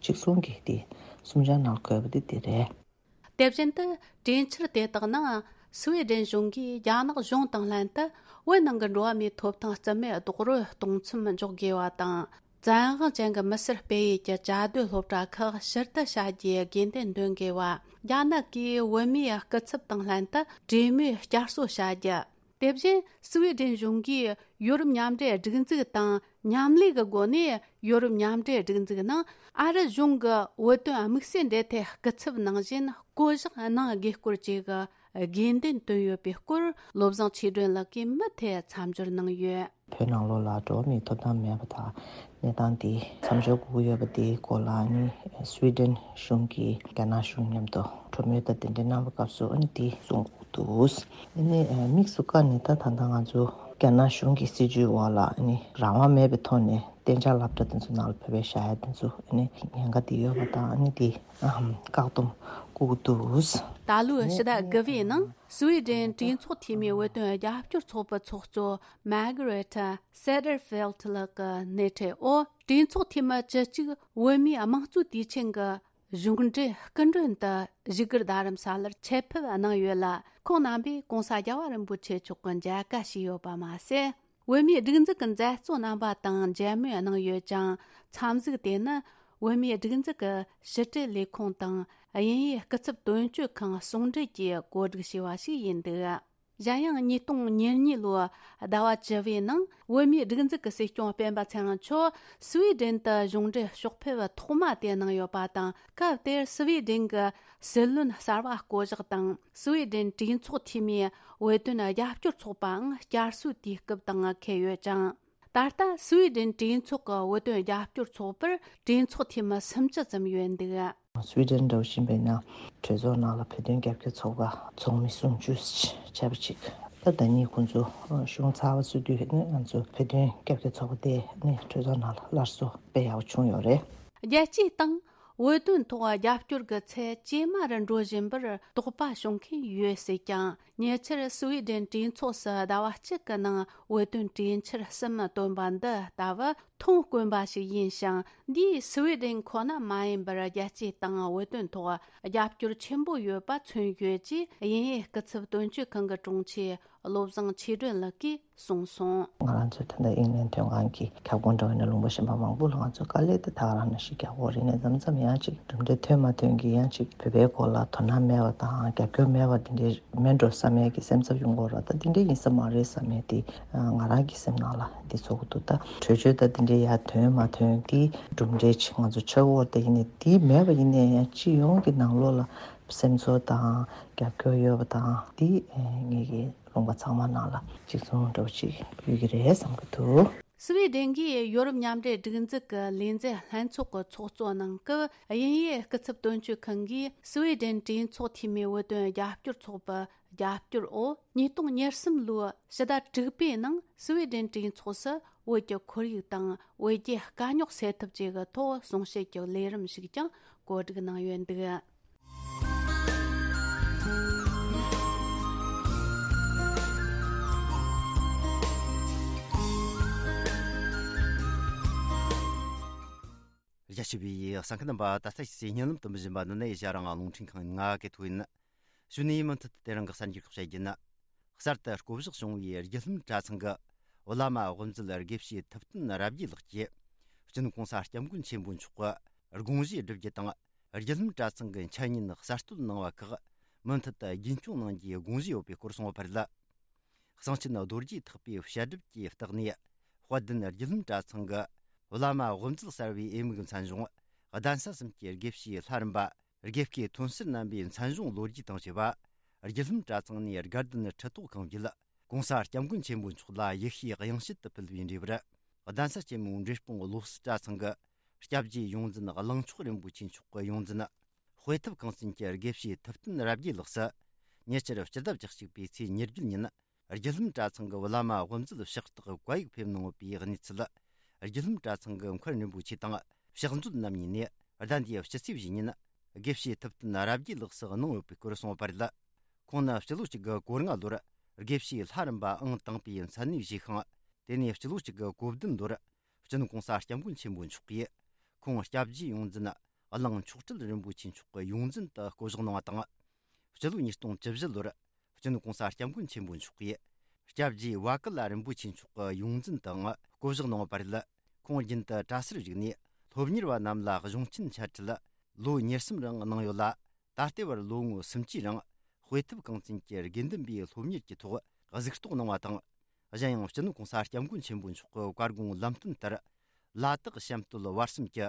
གཅིག་མཚུངས་ཀྱི་དེ་གསུམ་ཆར་ནང་འཁོད་པ་དེ་དེ་རེད། དེ་བཞིན་དུ་གྲོས་འཆར་དེ་དག་ནང་སུའེ་ཌེན་གཞུང་གིས་རྒྱ་ནག་གཞུང་དང་ལྷན་དུ་བོད་ནང་གི་འགྲོ་བ་མིའི་ཐོབ་ཐང་རྩིས་མེད་རྡོག་རོལ་གཏོང་མཚམས་འཇོག་དགོས་པ་དང་། བཙན་དབང་ཅན་གྱི་མི་སེར་སྤེལ་ཡུལ་གྱི་བཅའ་སྡོད་སློབ་གྲྭ་ཁག་ཕྱིར་བསྡུ་བྱ་རྒྱུའི་དགོས་འདུན་འདོན་དགོས་པ། རྒྱ་ནག་གིས་བོད་མིའི་སྐུ་ཚབ་དང་ལྷན་དུ་གྲོས་མོལ་བསྐྱར་གསོ་བྱ་རྒྱུ། དེ་བཞིན་སུའེ་ཌེན་གཞུང་གིས་ཡོ་རོབ་མཉམ་འབྲེལ་སྒྲིག་འཛུགས་དང་མཉམ་ལས་ཀྱི་སྒོ་ནས་ཡོ་རོབ་མཉམ་འབྲེལ་སྒྲིག་འཛུགས་ནང་ཨ་རི་གཞུང་གི་བོད་དོན་དམིགས་བསལ་འབྲེལ་མཐུད་སྐུ་ཚབ་ནང་བཞིན་བསྐོ་གཞག་གནང་དགོས་སྐོར་བཅས་ཀྱི་དགོས་འདུན་བཏོན་ཡོད་པའི་སྐོར། བློ་བཟང་ཆོས་སྒྲོན་ལགས་ཀྱིས་མུ་མཐུད་མཚམས་སྦྱོར་གནང་ཡོད། བོད་ནང་ལོགས་ལ་འགྲོ་བ་མིའི་ཐོབ་ཐང་མེད་པ་དང་གནས་སྟངས་དེ་མཚམས་སྦྱོར་དགོས་ཀྱི་ཡོད་པ་དེའི་སྐོར་ལ་ནི་སུའེ་ཌེན་གཞུང་གིས་རྒྱ་ནག་གཞུང་མཉམ་དུ་གྲོས་མོལ་དང་དེ་འདྲ་གནང་བའི་སྐབས་སུ་ཨ་ནི་དེ་གསུང་དགོས་འདུག་ཨ་ནི་དམིགས་སུ་བཀར་ནས་ད་ད་ལྟ་ང་ཚོ་རྒྱ་ནག་གཞུང་གི་སྲིད་བྱུས་འོག་ལ་ཨ་ནི་རང་དབང་མེད་པའི་ཐོག་ནས་གཏན་འཇགས་སློབ་གྲྭ་དེ་ཚོ་ནང་ལ་བོད་པའི་བཞག་ཡ་དེ་ཚོ་ཨ་ནི་ཉེན་ཁ་དེ་ཡོད་པ་དང་ཨ་ནི་དེ་བཀག་སྡོམ་དགོས་འདུག་ད་ལོའི་ཕྱི་ཟླ་དགུ་པའི་ནང་སུའེ་ཌེན་གྲོས་ཚོགས་འཐུས་མིའི་བོད་དོན་རྒྱབ་སྐྱོར་ཚོགས་པའི་ཚོགས་གཙོ་མཱ་གྷ་རེ་ཐ་སེ་ཏེར་ཕེལ་ལགས་ཀྱི་སྣེ་ཁྲིད་འོག་གྲོས་ཚོགས་འཐུས་མི་བཅུ་གཅིག་བོད་མིའི་དམངས་གཙོའི་དུས་ཆེན་གྱི་གཞུང་འབྲེལ་སྐུ་མགྲོན་དུ་བཞུགས་སྒར་རྡ་རམ་ས་ལར་ཆེད་ཕེབས་གནང་ཡོད་ལ། ཁོང་རྣམ་པས་༸གོང་ས་༸རྒྱལ་བ་རིན་པོ་ཆེ་མཆོག་གི་མཇལ་ཁ་ཞུས་ཡོད་པ་མ་ཟད། བོད་མིའི་སྒྲིག་འཛུགས་ཀྱི་མཛད་གཙོ་རྣམ་པ་དང་མཇལ་མོལ་གནང་ཡོད་ཅིང་། འཚམས་གཟིགས་དེ་ནི་བོད་མིའི་སྒྲིག་འཛུགས་ཀྱི་ཕྱི་དྲིལ་ལས་ཁུངས་དང་དབྱིན་ཡུལ་སྐུ་ཚབ་དོན་གཅོད་ཁང་ཟུང་འབྲེལ་གྱིས་གོ་སྒྲིག་བྱས་པ་ཞིག་ཡིན་འདུག་གཞན་ཡང་ཉིས་སྟོང་ཉེར་གཉིས་ལོའི་ཟླ་བ་བཅུ་པའི་ནང་བོད་མིའི་སྒྲིག་འཛུགས་ཀྱི་སྲིད་སྐྱོང་སྤེན་པ་ཚེ་རིང་མཆོག་སུའེ་ཌེན་དུ་གཞུང་འབྲེལ་ཕྱོགས་ཕེབས་ཐོག་མ་དེ་གནང་ཡོད་པ་དང་། སྐབས་དེར་སུའེ་ཌེན་གྱི་སྲིད་བློན་གསར་པ་བསྐོ་གཞག་དང་། སུའེ་ཌེན་གྲོས་ཚོགས་འཐུས་མིའི་བོད་དོན་རྒྱབ་སྐྱོར་ཚོགས་པའང་བསྐྱར་གསོའི་དུས་སྐབས་དང་འཁེལ་ཡོད་ཅིང་། ད་ལྟ་སུའེ་ཌེན་གྲོས་ཚོགས་ཀྱི་བོད་དོན་རྒྱབ་སྐྱོར་ཚོགས་པར་གྲོས་ཚོགས་འཐུས་མི་སུམ་ཅུ་ཙམ་ཡོད་འདུག་སུའེ་ཌེན་འདྲ་བོ་ཞིག་ཡིན་པ་ཡིན་ན་གྲོས་ཚོགས་ནང་ལ་བོད་དོན་རྒྱབ་སྐྱོར་ཚོགས་པ་ཚོགས་མི་སུམ་ཅུ་བྱས་པ་ཅིག་ད་ཟླ་ཉིན་ཁོང་ཚོ་གཞུང་ཚར་བ་སུ་དུས་ནི་ང་ཚོ་བོད་དོན་རྒྱབ་སྐྱོར་ཚོགས་པ་དེ་ནི་གྲོས་ཚོགས་ནང་ལ་སླར་གསོ་དཔེ་ཡག་པོ་བྱུང་ཡོད་རེད། རྒྱལ་སྤྱིའི་སྟེང་ བོད་དོན་ཐོག་རྒྱབ་སྐྱོར་གྱི་ཚད་ཇེ་དམའ་རུ་འགྲོ་བཞིན་པར་དོགས་པ་བྱུང་མཁན་ཡོད་སྲིད་ཀྱང་། ཉེ་ཆར་སུ་ཝེ་ཌེན་གྲོས་ཚོགས་སུ་ཟླ་བ་གཅིག་གི་ནང་བོད་དོན་གྲོས་འཆར་གསུམ་བཏོན་པ་འདི་ལྟ་བུ་མཐོང་དཀོན་པ་ཞིག་ཡིན་ཞིང་། འདིས་སུ་ཝེ་ཌེན་ཁོ་ན་མ་ཡིན་པར་རྒྱལ་སྤྱིའི་སྟེང་བོད་དོན་ཐོག་རྒྱབ་སྐྱོར་ཆེན་པོ་ཡོད་པ་མཚོན་ཡོད་ཅེས་དབྱིན་ཡུལ་སྐུ་ཚབ་དོན་གཅོད་ཁང་གི་དྲུང་ཆེ་བློ་བཟང་ཆོས་སྒྲོན་ལགས་ཀྱིས་གསུངས་སོང་། ང་རང་ཚོའི་ད་ལྟ་དབྱིན་ལན་དོན་ཁང་གི་ཁྱབ་ཁོངས་འདྲ་བའི་ནས་ལུང་པ་གཞན་པ་མང་པོ་ལ་ང་ཚོ་དཀའ་ལས་དེ་ད་ག་རང་ནང་བཞིན་རྒྱག་དགོས་རེད། ནས་མཚམས་མཚམས་ཡང་ཅིག་གྲུབ་འབྲས་ཐོན་མ་ཐོན་གྱི་ཡང་ཅིག་བོད་པའི་སྐོར་ལ་དོ་སྣང་མེད་པ་དང་རྒྱབ་སྐྱོར་མེད་པ་དེ་འདྲའི་མེད་འགྲོ་བསམ་ཡས་ཀྱི་སེམས་འཚབ་ཡོང་གི་ཡོད་རེད། ད་དེ་འདྲའི་ཡིན་ས་མ་རེད་བསམ་ཡས་དེ་ང་རང་གི་སེམས་ནང་ལ་འདི་ཚོགས་འདུ་ད་གྲོས་ཆོད་ད་དེ་འདྲའི་ཡར་ཐོན་མ་ཐོན་དེ་གྲུབ་འབྲས་ཅིག་ང་ཚོ་ཆགས་ཡོད་རེད། ད་ཡིན་ནའི་དེ་མེད་པ་ཡིན་ནའི་ཡང་སྤྱི་ཡོངས་ཀྱི་ནང་ལོགས་ལ་སེམས་ཚོར་དང་རྒྱབ་སྐྱོར་ཡོད་པ་དང་དེ་ངེད་ཀྱི་ལུང་པ་ཚང་མ་ནང་ལ་གཅིག་མཚུངས་འདྲ་པོ་ཅིག་ཡོད་ཀྱི་རེད་བསམ་གྱི་འདུག་སུ་ཝེ་ཌེན་གྱིས་ཡོ་རོབ་མཉམ་འབྲེལ་སྒྲིག་འཛུགས་ཀྱི་ལས་འཛིན་ལྷན་ཚོགས་ཀྱི་ཚོགས་གཙོ་གནང་སྐབས། དབྱིན་ཡུལ་སྐུ་ཚབ་དོན་གཅོད་ཁང་གིས་སུ་ཝེ་ཌེན་གྲོས་ཚོགས་འཐུས་མིའི་བོད་དོན་རྒྱབ་སྐྱོར་ཚོགས་པའི་རྒྱབ་སྐྱོར་འོག་ཉིས་སྟོང་ཉེར་གསུམ་ལོའི་ཕྱི་ཟླ་དྲུག་པའི་ནང་སུ་ཝེ་ཌེན་གྲོས་ཚོགས་སུ་བོད་ཀྱི་ཁོར་ཡུག་དང་བོད་རྒྱའི་དཀའ་རྙོག་སེལ་ཐབས་བཅས་ཀྱི་ཐོག་གསུང་བཤད་ཀྱི་ལས་རིམ་ཞིག་ཀྱང་གོ་སྒྲིག་གནང་ཡོད་འདུག་རྒྱ་ཆེ་བའི་གསན་མཁན་རྣམ་པ། ད་ལྟ་ཞིག་སའི་བརྙན་ལམ་དུ་འབུལ་བཞིན་པ་ནི་ནས་ཨེ་ཤ་ཡ་རང་དབང་རླུང་འཕྲིན་ཁང་ཡིན། ང་གི་ཐོ་ཡིན། གཞུག་ནས་མུ་མཐུད་དེ་རང་གི་གསར་འགྱུར་ཁག་བཤད་རྒྱུ་ཡིན། གསར་དུ་བསྐོ་གཞག་བྱུང་བའི་རྒྱུ་ལྷུན་གྲྭ་ཚང་གི་བླ་མ་དབུ་མཛད་དགེ་བཤེས་ཐུབ་བསྟན་རབ་རྒྱས་ལགས་ཀྱིས་སྤྱི་ནོར་༸གོང་ས་༸སྐྱབས་མགོན་ཆེན་པོ་མཆོག་གི་དགོངས་བཞེས་བསྒྲུབ་རྒྱུ་དང་། རྒྱུ་ལྷུན་གྲྭ་ཚང་གི་འཆད་ཉན་གསར་གཏོད་གནང་བ་ཁག་མུ་མཐུད་དུ་རྒྱུན་སྐྱོང་གནང་རྒྱུའི་དགོངས་བཞེས་ཡོད་པའི་སྐོར་གསུངས་པ་རེད། གསང་ཆེན་རྡོ་རྗེ་ཐེག་པའི་བཤད་སྒྲུབ་ཀྱི་བརྟག་གནས་དཔལ་ལྡན་རྒྱུ་ལྷུན་གྲྭ་ཚང་གི་བླ་མ་དབུ་མཛད་གསར་བའི་འོས་མིའི་མཚན་གཞུང་གདན་ས་གསུམ་གྱི་དགེ་བཤེས་ལྷ་རམས་པ་དགེ་བསྐོས་ཐོན་སར་རྣམ་པའི་མཚན་གཞུང་ལོ་རྒྱུས་དང་བཅས་པ། རྒྱུ་ལྷུན་གྲྭ་ཚང་ནས་དགའ་ལྡན་ཁྲི་ཐོག་གང་བརྒྱུད་༸གོང་ས་༸སྐྱབས་མགོན་ཆེན་པོ་མཆོག་ལ་ཡིད་བཞིན་དབྱངས་བཞིན་དུ་ཕུལ་བའི་འབྲས་བུར། གདན་ས་ཆེན་མོའི་འབྲས་སྤུངས་བློ་གསལ་གྲྭ་ཚང་གི་སྐྱབས་རྗེ་ཡོངས་འཛིན་གླིང་མཆོག་རིན་པོ་ཆེ་མཆོག་གི་ཡོངས་འཛིན། དཔེ་ཐུབ་ཁང་ཚན་གྱི་དགེ་བཤེས་ཐུབ་བསྟན་རབ་རྒྱས་ལགས་སུ། ཉེ་ཆར་སྤྱི་ཟླ་བཅུ་གཅིག་པའི་ཚེས་ཉེར་བརྒྱད་ཉིན། རྒྱུ་ལྷུན་གྲྭ་ཚང་གི་བླ་མ་དབུ་མཛད་ཕྱག་རྟགས་བཀའ་ཡིག་ཕེབས་གནང་ཡོད་པའི་གནས་ཚུལ། རྒྱུ་ལྷུན་གྲྭ་ཚང་གི་མཁར་རིན་པོ་ཆེ་དང་ཕྱག་མཛོད་རྣམ་གཉིས་ནས་ཟླ་འདིའི་སྤྱི་ཚེས་བཞི་ཉིན། དགེ་བཤེས་ཐུབ་བསྟན་རབ་རྒྱས་ལགས་སུ་གནང་ཡོད་པའི་སྐོར་གསུངས་པ་རེད། ཁོང་ནི་སྤྱི་ལོ་གཅིག་དགུ་གོ་ལྔ་ལོར་དགེ་བཤེས་ལྷ་རམས་པ་ཨང་དང་པའི་མཚན་གནས་བཞེས་ཤིང་། དེ་ནས་སྤྱི་ལོ་གཅིག་དགུ་གོ་བདུན་ལོར། སྤྱི་ནོར་༸གོང་ས་༸སྐྱབས་མགོན་ཆེན་པོ་མཆོག་གིས་ཁོང་སྐྱབས་རྗེ་ཡོངས་འཛིན་གླིང་མཆོག་སྤྲུལ་རིན་པོ་ཆེ་མཆོག་གི་ཡོངས་འཛིན་དུ་བསྐོ་གཞག་གནང་བ་དང་། སྤྱི་ལོ་ཉིས་སྟོང་བཅུ་བཞི་ལོར་སྤྱི་ནོར་༸གོང་ས་༸སྐྱབས་མགོན་ཆེན་པོ་མཆོག་གིས་སྐྱབས་རྗེ་བ་ཀི་ལ་རིན་པོ་ཆེ་མཆོག་གི་ཡོངས་འཛིན་དུའང་བསྐོ་གཞག་གནང་བ་རེད། ཁོང་རྒྱུན་དུ་གྲྭ་སར་བཞུགས་ནས་སློབ་གཉེར་བ་རྣམས་ལ་གཞུང་ཆེན་འཆད་ཁྲིད་ལོ་ཉེར་གསུམ་རིང་གནང་ཡོད་ལ། ད་ལྟའི་བར་ལོ་ངོ་སུམ་ཅུའི་རིང་དཔེ་ཐུབ་ཁང་ཚན་གྱི་དགེ་འདུན་པའི་སློབ་གཉེར་གྱི་ཐོག་གཟིགས་རྟོག་གནང་བ་དང་། གཞན་ཡང་སྤྱི་ནོར་༸གོང་ས་༸སྐྱབས་མགོན་ཆེན་པོ་མཆོག་གི་བཀའ་དགོངས་ལམ་སྟོན་ལྟར། ལ་དྭགས་གཤམ་སྟོད་བར་གསུམ་གྱི་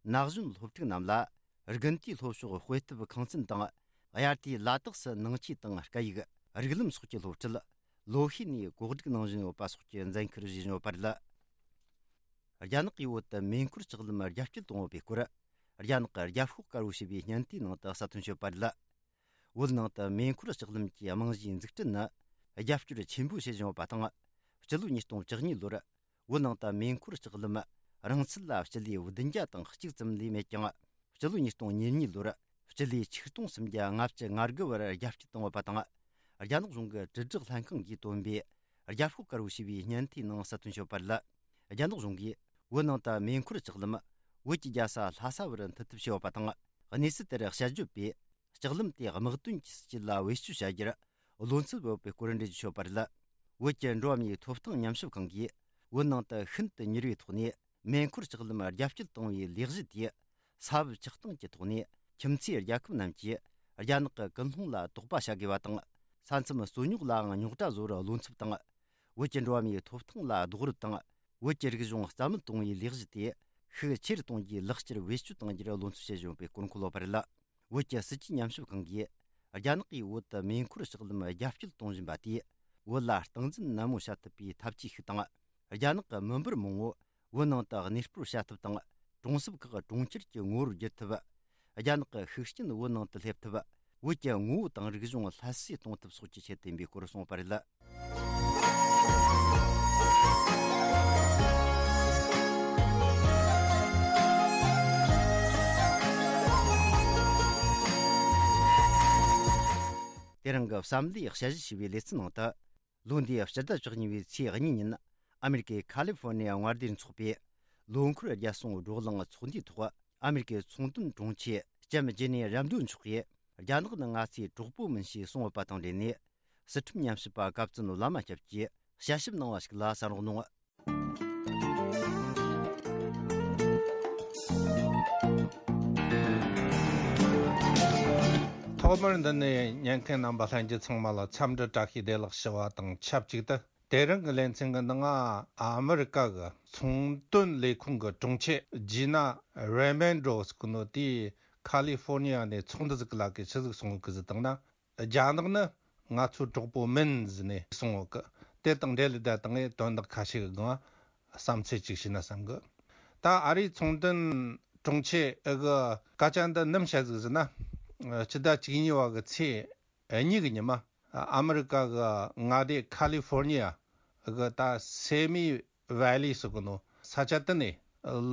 ན་གཞོན་སློབ་ཕྲུག་རྣམས་ལ་དགུན་དུས་སློབ་ཕྱོགས་དཔེ་ཐུབ་ཁང་ཚན་དང་། དབྱར་དུས་ལ་དྭགས་སུ་ནང་ཆོས་དང་སྐད་ཡིག་རིགས་ལམ་སོགས་ཀྱི་སློབ་ཁྲིད་ལོ་ཤས་ནས་གོ་སྒྲིག་གནང་བཞིན་ཡོད་པ་སོགས་ཀྱི་མཛད་འཁུར་བཞེས་བཞིན་ཡོད་པ་རེད། རྒྱ་ནག་གིས་བོད་དུ་མེ་འཁོར་ལྕགས་ལམ་རྒྱ་སྐྱེད་གཏོང་ཡོད་པའི་སྐོར། རྒྱ་ནག་གི་རྒྱབ་ཤོག་དཀར་པོ་ཞེས་པའི་བརྙན་ལྟའི་ནང་དུ་གསལ་སྟོན་བྱས་ཡོད་པ་རེད། བོད་ནང་དུ་མེ་འཁོར་ལྕགས་ལམ་གྱི་རྨང་གཞིའི་འཛུགས་སྐྲུན་ནི་རྒྱབ་སྐྱོར་ཆེན་པོ་བྱེད་བཞིན་ཡོད་པ་དང་། སྤྱི་ལོ་ཉིས་སྟོང་བཅུ་གཉིས་ལོར་བོད་ནང་དུ་མེ་འཁོར་ལྕགས་ལམ་རིང་ཚད་ལ་སྤྱི་ལེ་བདུན་བརྒྱ་དང་གཅིག་ཙམ་ལས་མེད་ཀྱང་། སྤྱི་ལོ་ཉིས་སྟོང་ཉེར་གཉིས་ལོར་སྤྱི་ལེ་ཆིག་སྟོང་སུམ་བརྒྱ་ལྔ་བཅུ་ང་དགུ་བར་རྒྱ་སྐྱེད་བཏང་ཡོད་པ་དང་། རྒྱ་ནག་གཞུང་གི་དྲིལ་བསྒྲགས་ལྷན་ཁང་གིས་བཏོན་པའི་རྒྱབ་ཤོག་དཀར་པོ་ཞེས་པའི་བརྙན་ལྟའི་ནང་གསལ་སྟོན་བྱས་ཡོད་པ་རེད། རྒྱ་ནག་གཞུང་གིས་བོད་ནང་དུ་མེ་འཁོར་ལྕགས་ལམ་བོད་ཀྱི་རྒྱལ་ས་ལྷ་ས་བར་མཐུད་ཐབས་བྱས་ཡོད་པ་དང་། གནས་ཚུལ་དེར་དཔྱད་བརྗོད་པས། ལྕགས་ལམ་དེ་དམག་དོན་གྱི་སྲིད་ཇུས་ལ་བེད་སྤྱོད་བྱ་རྒྱུར་བློ་འཚབ་ཡོད་པའི་སྐོར་འགྲེལ་བརྗོད་བྱས་ཡོད་པ་རེད། བོད་ཀྱི་འགྲོ་བ་མིའི་ཐོབ་ཐང་ཉམས་ཞིབ་ཁང་གིས་བོད་ནང་དུ་ཤིན་ཏུ་མྱུར་བའི་ཐོག་ནས་མེ་འཁོར་ལྕགས་ལམ་རྒྱ་སྐྱེད་གཏོང་བའི་ལས་གཞི་དེས། ས་བབ་ཆགས་སྟངས་ཀྱི་ཐོག་ནས་ཁྱིམ་མཚེས་རྒྱལ་ཁབ་རྣམས་ཀྱིས་རྒྱ་ནག་གི་ཀུན་སློང་ལ་དོགས་པ་བྱ་དགོས་པ་དང་། ས་མཚམས་རྩོད་རྙོག་ལའང་རྙོག་དྲ་བཟོ་བར་བློ་འཚབ་དང་། བོད་ཀྱི་འགྲོ་བ་མིའི་ཐོབ་ཐང་ལ་རྡོག་རོལ་དང་། བོད་ཀྱི་རིག་གཞུང་རྩ་མེད་གཏོང་བའི་ལས་གཞི་དེ་ཤུགས་ཆེ་རུ་གཏོང་རྒྱུའི་ལག་ཁྱེར་བེད་སྤྱོད་གཏང་རྒྱུར་བློ་འཚབ་བྱེད་བཞིན་ཡོད་པའི་སྐོར་འཁོད་ཡོད་པ་རེད། བོད་ཀྱི་སྲིད་ཇུས་ཉམས་ཞིབ་ཁང་གིས། རྒྱ་ནག་གིས་བོད་དུ་མེ་འཁོར་ལྕགས་ལམ་རྒྱ་སྐྱེད་གཏོང་བཞིན་པ་དེས། བོད་ལ་སྟངས་འཛིན་ནན་མོ་བྱ་ཐུབ་པའི་ཐབས་ཇུས་ཤིག་དང་། རྒྱ་ནག་གི་མི་འབོར་མང་བོ་བོད་ནང་དུ་གནས་སྤོར་བྱ་ཐབས་དང་། གྲོང་གསེབ་ཁག་གྲོང་ཁྱེར་གྱི་ངོ་བོར་བསྒྱུར་ཐུབ། རྒྱ་ནག་གི་ཤུགས་རྐྱེན་བོད་ནང་དུ་སླེབས་ཐུབ། བོད་ཀྱི་ངོ་བོ་དང་རིག་གཞུང་སླར་གསོས་གཏོང་ཐབས་སོགས་ཀྱི་ཆེད་དུ་ཡིན་པའི་སྐོར་གསུངས་པ་རེད། གི་བསམ་བློའི་དཔྱད་ཞིབ་བྱས་པའི་ལེ་ཚན་ནང་དུ། ལོ་འདིའི་ཕྱི་ཟླ་བཅུ་གཉིས་པའི་ཚེས་གཉིས་ཉིན། ཨ་མེ་རི་ཀའི་ཁ་ལི་ཧྥོར་ནི་ཡ་མངའ་སྡེར་འཚོགས་པའི་ལོ་འཁོར་རྒྱལ་སྲུང་བགྲོ་གླེང་ཚོགས་འདུའི་ཐོག་ཨ་མེ་རི་ཀའི་ཚོང་དོན་དྲུང་ཆེ་ལྕམ་ཇེ་ནེ་རམ་ཌོ་མཆོག་གིས། རྒྱ་ནག་ནི་ང་ཚོའི་གྲོགས་པོ་མིན་ཞེས་གསུངས་ཡོད་པ་དང་འབྲེལ་ནས། སྲིད་ཁྲིམས་ཉམས་ཞིབ་པ་གབ་ཙུན་བླ་མ་སྐྱབས་ཀྱིས་དཔྱད་ཞིབ་གནང་བ་ཞིག་ལ་གསན་རོགས་གནང་། ཐོག་མར་འདི་ནས་ཉན་མཁན་རྣམ་པ་ལྷན་རྒྱས་ཚང་མ་ལ་འཚམས་འདྲི་བཀྲ་ཤིས་བདེ་ལེགས་ཞུ་བ་དང་ཆབས་ཅིག་ཏུ། དེ་རིང་གི་ལེ་ཚན་གྱི་ནང་ང་ཨ་མི་རི་ཀ་གི་ཚོང་དོན་ལས་ཁུངས་ཀྱི་དྲུང་ཆེ་ཇི་ན་རེ་མན་ཌོ་ཟེར་གི་ནོ་དེས་ཁ་ལི་ཧྥོར་ནི་ཡ་ནས་ཚོགས་འདུ་ཟིག་གི་ལ་ཀའི་ཆི་ཟིག་གསུང་གི་ཟིག་བཏང་ན། རྒྱ་ནག་ནི་ང་ཚོའི་གྲོགས་པོ་མིན་ཟེར་ནས་གསུང་ཡོད་གི། དེ་དང་འབྲེལ་ལས་ད་དང་ངས་དོན་དག་ཁ་ཤས་ཀྱི་སྒང་བསམ་ཚུལ་ཅིག་ཞུས་ན་བསམ་གི། ད་ཨ་རིའི་ཚོང་དོན་དྲུང་ཆེ་ཨི་གི་སྐད་ཆ་འདི་ནམ་བཤད་ཟིག་ཟེར་ན། སྤྱི་ཟླ་བཅུ་གཉིས་པ་གི་ཚེས་གཉིས་གི་ཉི་མ། ཨ་མི་རི་ཀ་གི་མངའ་སྡེ་ཁ་ལི་ཧྥོར་ནི་ཡ་གི་ད་སེ་མི་ཝེ་ལི་ཟེར་གི་ནོ་ས་ཆ་དེ་ནས་